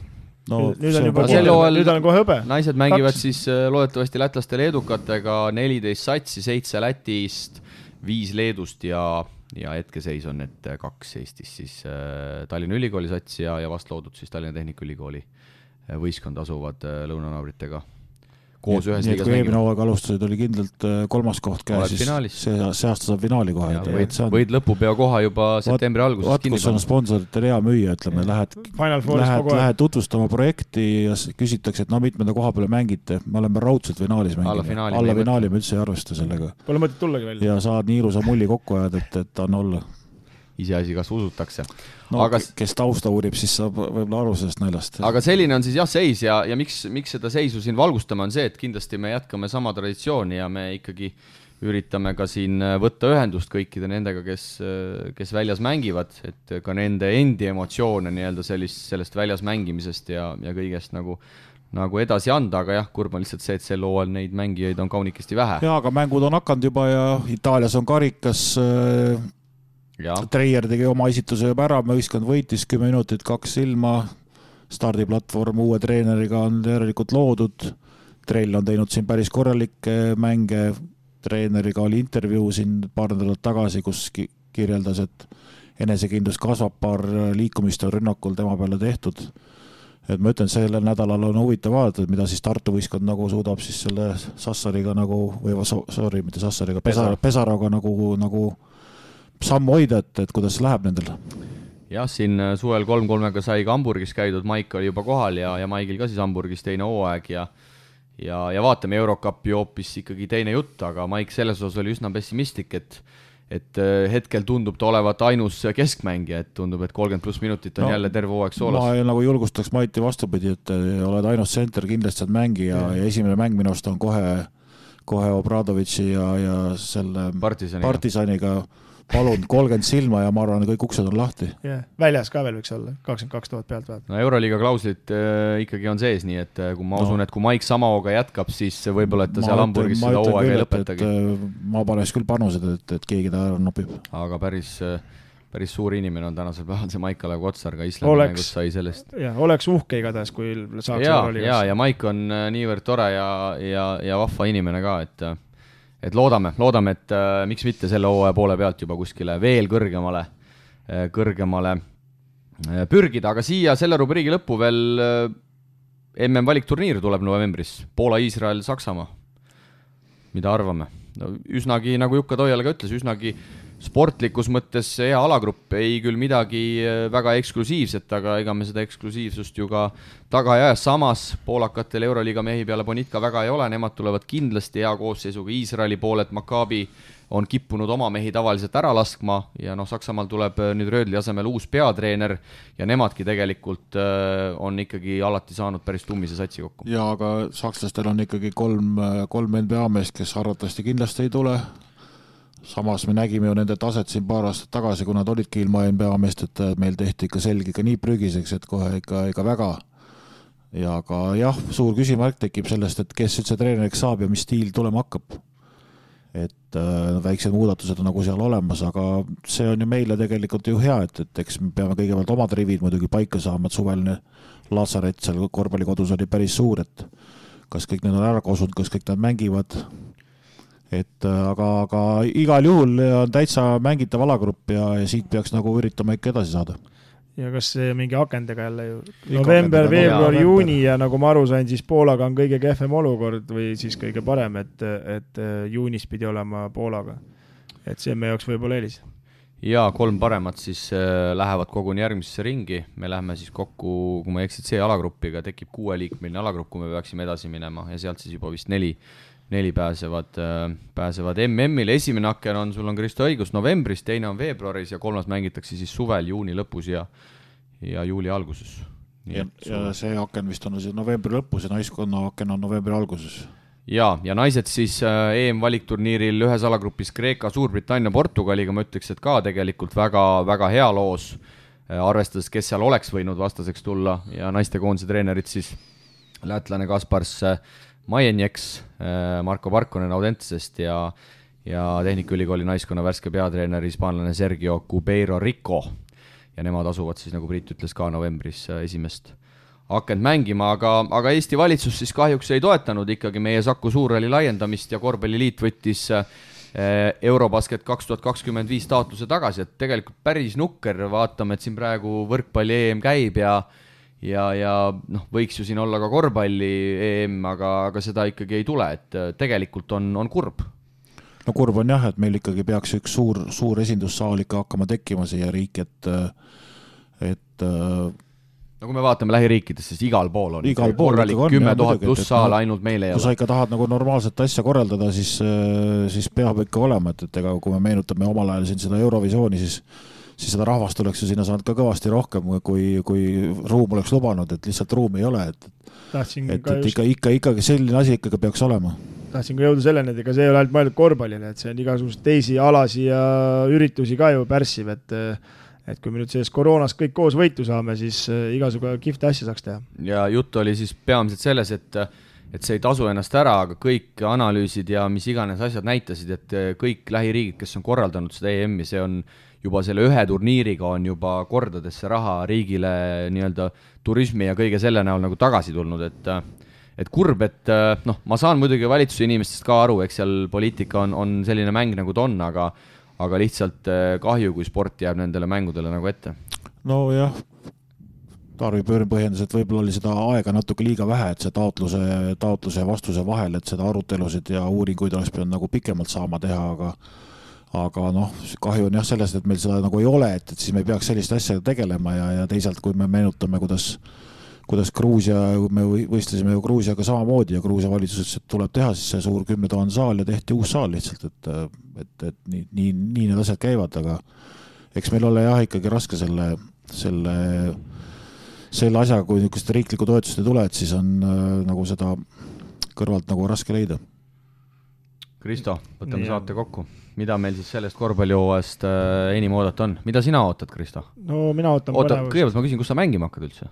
No, nüüd on juba nüüd on kohe hõbe. Naised mängivad siis loodetavasti lätlaste leedukatega 14 satsi, 7 Lätist, 5 Leedust ja hetkeseis on, et 2 Eestis siis Tallinna Ülikooli sats ja vast loodud siis Tallinna Tehnikaülikooli võistkond asuvad lõunanaabritega koos ühes liigas mängima. Eelmine hooaeg alustasid, oli kindlalt 3. koht käes, siis see aasta saab finaali kohe. Võid lõpupeo koha juba septembri alguses kinni. Kus on sponsorite rea müüa, ütleme, lähed tutvustama projekti ja küsitakse, et no mitmenda koha peale mängite. Me oleme raudselt finaalis mängime. Alla finaali me üldse ei arvesta sellega. Pole mõtet tullagi välja. Ja saad nii ilusa mulli kokku ajad, et on olla. Iseasi, kas usutakse. No, aga kes tausta uurib, siis saab võib-olla aru sellest naljast. Aga selline on siis seis ja miks seda seisu siin valgustame on see, et kindlasti me jätkame sama traditsiooni ja me ikkagi üritame ka siin võtta ühendust kõikide nendega, kes väljas mängivad, et ka nende endi emotsioone nii-öelda sellest väljas mängimisest ja kõigest nagu edasi anda, aga jah, kurb on lihtsalt see, et sel hooajal neid mängijaid on kaunikesti vähe. Ja, aga mängud on hakanud juba ja Itaalias on karikas. Treier tegi oma esituse juba ära, võistkond võitis 10 minutit, 2 silma, stardiplatvorm uue treeneriga on järelikult loodud, Trell on teinud siin päris korralikke mänge, treeneriga oli intervjuu siin paar nädalat tagasi, kus kirjeldas, et enesekindlus kasvab, paar liikumist on rünnakul tema peale tehtud. Et ma ütlen, sellel nädalal on huvitav vaadata, mida siis Tartu võistkond nagu suudab siis selle Sassariga mitte Sassariga, Pesaroga nagu sammu hoida, et kuidas läheb nendel? Jah, siin suvel 3-3-ga sai ka Hamburgis käidud, Maik oli juba kohal ja Maigil ka siis Hamburgis teine hooaeg ja vaatame Eurocupi hoopis ikkagi teine jutt, aga Maik selles osas oli üsna pessimistlik, et hetkel tundub ta olevat ainus keskmängija, et tundub, et 30+ minutit on jälle terve hooaeg soolas. Ma nagu julgustaks Maiti vastupidi, et oled ainus center, kindlasti saad mängija ja esimene mäng minust on kohe Obradovitši ja selle Partisaniga palun 30 silma ja ma arvan, kõik uksed on lahti. Väljas ka veel võiks olla, 22 000 pealt vaat. No Euroliiga klauslit ikkagi on sees, nii et kui ma usun, et kui Maik sama hooga jätkab, siis võib-olla, et ta seal Hamburgis seda hooaega ei lõpetagi. Ma paneks küll panused, et keegi ta ära nopib. Aga päris suur inimene on tänasel päeval see Maik Kalev Kotsar, ka Islandi mängus sai sellest. Oleks uhke igatahes, kui saaks Euroliigas. Ja Maik on niivõrd tore ja vahva inimene ka, et loodame, et miks mitte selle hooaja poole pealt juba kuskile veel kõrgemale pürgida, aga siia selle rubriigi lõppu veel MM valikturniir tuleb novembris, Poola, Iisrael, Saksamaa. Mida arvame? No, üsnagi, nagu Jukka Toiala ka ütles, üsnagi sportlikus mõttes hea alagrupp, ei küll midagi väga eksklusiivset, aga ega me seda eksklusiivsust ju ka taga ei aja. Samas poolakatel Euroliiga mehi peale Bonitka väga ei ole, nemad tulevad kindlasti hea koosseisuga. Iisraeli pooled Maccabi on kippunud oma mehi tavaliselt ära laskma ja Saksamaal tuleb nüüd Röödli asemel uus peatreener ja nemadki tegelikult on ikkagi alati saanud päris tummise satsi kokku. Ja aga sakslastel on ikkagi kolm NBA meest, kes arvatavasti kindlasti ei tule. Samas me nägime ju nende taset siin paar aastat tagasi, kui nad olidki ilma NBA meest, et meil tehti ikka selge ka nii prügiseks, et kohe ikka väga. Ja aga jah, suur küsimärk tekib sellest, et kes üldse treeneriks saab ja mis stiil tulema hakkab. Et väiksed muudatused on nagu seal olemas, aga see on ju meile tegelikult ju hea, et eks me peame kõigepealt omad rivid muidugi paika saama, et suveline Lazaret seal korvpallikodus oli päris suur, et kas kõik need on ära kosunud, kas kõik nad mängivad. Et aga igal juhul on täitsa mängitav alagrupp ja siit peaks nagu üritama ikka edasi saada. Ja kas see mingi akendega jälle ju november, veebruar, juuni ja nagu ma aru sain, siis Poolaga on kõige kehvem olukord või siis kõige parem, et juunis pidi olema Poolaga. Et see me jaoks võib-olla eelis. Ja 3 paremat siis lähevad koguni järgmisesse ringi. Me läheme siis kokku, kui ma eksid see alagruppiga, tekib 6-liikmeline alagrupp, kui me peaksime edasi minema ja sealt siis juba vist 4 pääsevad MM-ile. Esimene aken on, sul on Kristo õigus, novembris, teine on veebruaris ja 3 mängitakse siis suvel, juuni lõpus ja juuli alguses. Ja see aken vist on siis novembri lõpus ja naiskonna aken on novembri alguses. Ja naised siis EM-valikturniiril ühes alagrupis Kreeka, Suurbritannia, Portugaliga, ma ütleks, et ka tegelikult väga, väga hea loos, arvestades, kes seal oleks võinud vastaseks tulla ja naistekoondise treenerid siis lätlane Kaspars Majenjeks, Marko Parkonen Audentesest ja Tehnikaülikooli naiskonna värske peatreener hispaanlane Sergio Cubeiro Rico. ja nemad asuvad siis, nagu Priit ütles, ka novembris esimest akent mängima, aga Eesti valitsus siis kahjuks ei toetanud ikkagi meie Saku Suurhalli laiendamist ja Korvpalliliit võttis Eurobasket 2025 taotluse tagasi, et tegelikult päris nukker, vaatame, et siin praegu võrkpalli EM käib ja võiks ju siin olla ka korvpalli EM, aga seda ikkagi ei tule, et tegelikult on kurb. No kurb on jah, et meil ikkagi peaks üks suur esindussaal ikka hakkama tekkima siia riik, et no kui me vaatame lähiriikides, siis igal pool on korralik 10 000 pluss saal, ainult meil ei ole. Kui sa ikka tahad nagu normaalset asja korraldada, siis peab ikka olema, et ega kui me meenutame omal ajal siin seda Eurovisiooni, siis seda rahvast oleks ju sinna saanud ka kõvasti rohkem, kui ruum oleks lubanud, et lihtsalt ruumi ei ole. Ikkagi selline asi ikkagi peaks olema. Tahtsin ka jõuda selleni, et ega see ei ole ainult mõeldud korvpallile, et see on igasugust teisi alasi ja üritusi ka ju pärssiv, et kui me nüüd sellest koroonas kõik koos võitu saame, siis igasugu kihvte asja saaks teha. Ja jutt oli siis peamiselt selles, et see ei tasu ennast ära, aga kõik analüüsid ja mis iganes asjad näitasid, et kõik lähiriigid, kes on korraldanud seda EM-i, see on juba selle ühe turniiriga on juba kordadesse raha riigile nii-öelda turismi ja kõige selle näol nagu tagasi tulnud, et kurb, et ma saan muidugi valitsuse inimestest ka aru, eks seal poliitika on selline mäng nagu ta on, aga lihtsalt kahju, kui sport jääb nendele mängudele nagu ette. No jah, Tarvi Pöörin põhjendas, et võib-olla oli seda aega natuke liiga vähe, et see taotluse ja vastuse vahel, et seda arutelusid ja uuringuid oleks pidanud nagu pikemalt saama teha, aga kahju on jah sellest, et meil seda nagu ei ole, et siis me ei peaks sellist asja tegelema ja teisalt, kui me meenutame, kuidas Gruusia, me võistlesime ju Gruusiaga samamoodi ja Gruusia valitsus ütles, et tuleb teha siis see suur 10 000 saal ja tehti uus saal lihtsalt, et nii need asjad käivad, aga eks meil ole jah ikkagi raske selle asjaga, kui niisugust riiklikku toetust ei tule, et siis on nagu seda kõrvalt nagu raske leida. Kristo, võtame saate kokku. Mida meil siis sellest korvpallihooajast enim oodata on? Mida sina ootad, Kristo? No mina ootan põnevust. Kõigepealt ma küsin, kus sa mängima hakkad üldse?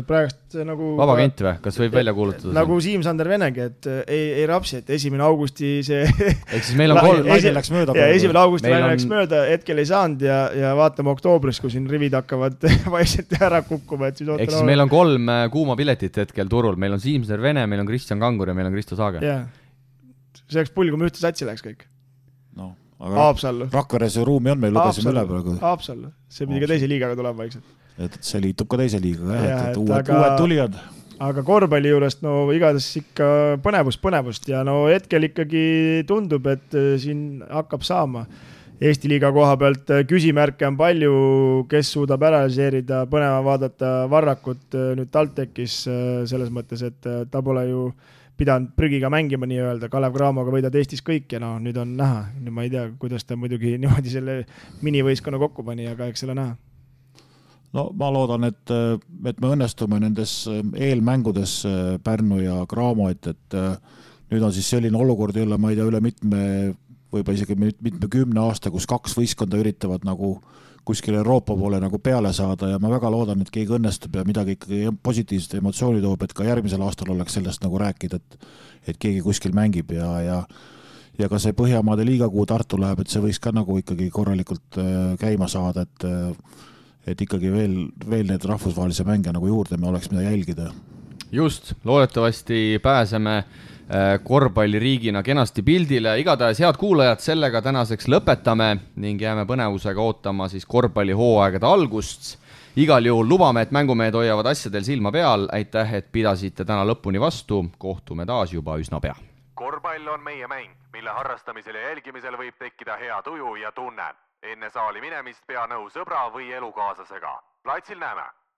Praegust nagu... Vabakent või? Kas võib välja kuulutada? Nagu Siim-Sander Venegi, et ei rapsi, et 1. augusti see... Ehk siis meil on 1. läks mööda. Ja 1. augusti läks mööda, hetkel ei saanud ja vaatame oktoobris, kui siin rivid hakkavad vaikselt ära kukkuma. Ehk siis meil on 3 kuuma piletit hetkel turul. Meil on Siim-Sander Vene, meil on Kristjan Kangur ja meil on Kristo Saage. Jah. See oleks pull, kui me ühte satsi läheks kõik. No, aga Rakveres ju ruumi on, meil lugesime üle praegu. Haapsallu. See pidi ka teise liigaga tulema vaikselt. Et see liitub ka teise liigaga, et uued tulijad. Aga korvpalli juurest igatahes ikka põnevust ja hetkel ikkagi tundub, et siin hakkab saama. Eesti liiga koha pealt küsimärke on palju, kes suudab ära seerida, põneva vaadata Varrakut nüüd TalTechis selles mõttes, et ta pole ju pidanud prügiga mängima nii-öelda, Kalev Cramoga võidad Eestis kõik ja nüüd on näha. Nüüd ma ei tea, kuidas ta muidugi niimoodi selle minivõistkonna kokku pani, aga eks selle näha. No ma loodan, et me õnnestume nendes eelmängudes Pärnu ja Cramo, et nüüd on siis selline olukord jälle, ma ei tea, üle võib-olla isegi mitme 10 aasta, kus 2 võistkonda üritavad nagu kuskil Euroopa poole nagu peale saada ja ma väga loodan, et keegi õnnestub ja midagi ikkagi positiivset emotsiooni toob, et ka järgmisel aastal oleks sellest nagu rääkida, et keegi kuskil mängib ja ka see Põhjamaade liiga, kuhu Tartu läheb, et see võiks ka nagu ikkagi korralikult käima saada, et ikkagi veel need rahvusvahelise mänge nagu juurde me oleks mida jälgida. Just, loodetavasti pääseme korvpalliriigina kenasti pildile. Igatahes head kuulajad, sellega tänaseks lõpetame ning jääme põnevusega ootama siis korvpallihooaegade algust. Igal juhul lubame, et mängumehed hoiavad asjadel silma peal. Aitäh, et pidasite täna lõpuni vastu. Kohtume taas juba üsna pea. Korvpall on meie mäng, mille harrastamisel ja jälgimisel võib tekkida hea tuju ja tunne. Enne saali minemist pea nõu sõbra või elukaaslasega. Platsil näeme!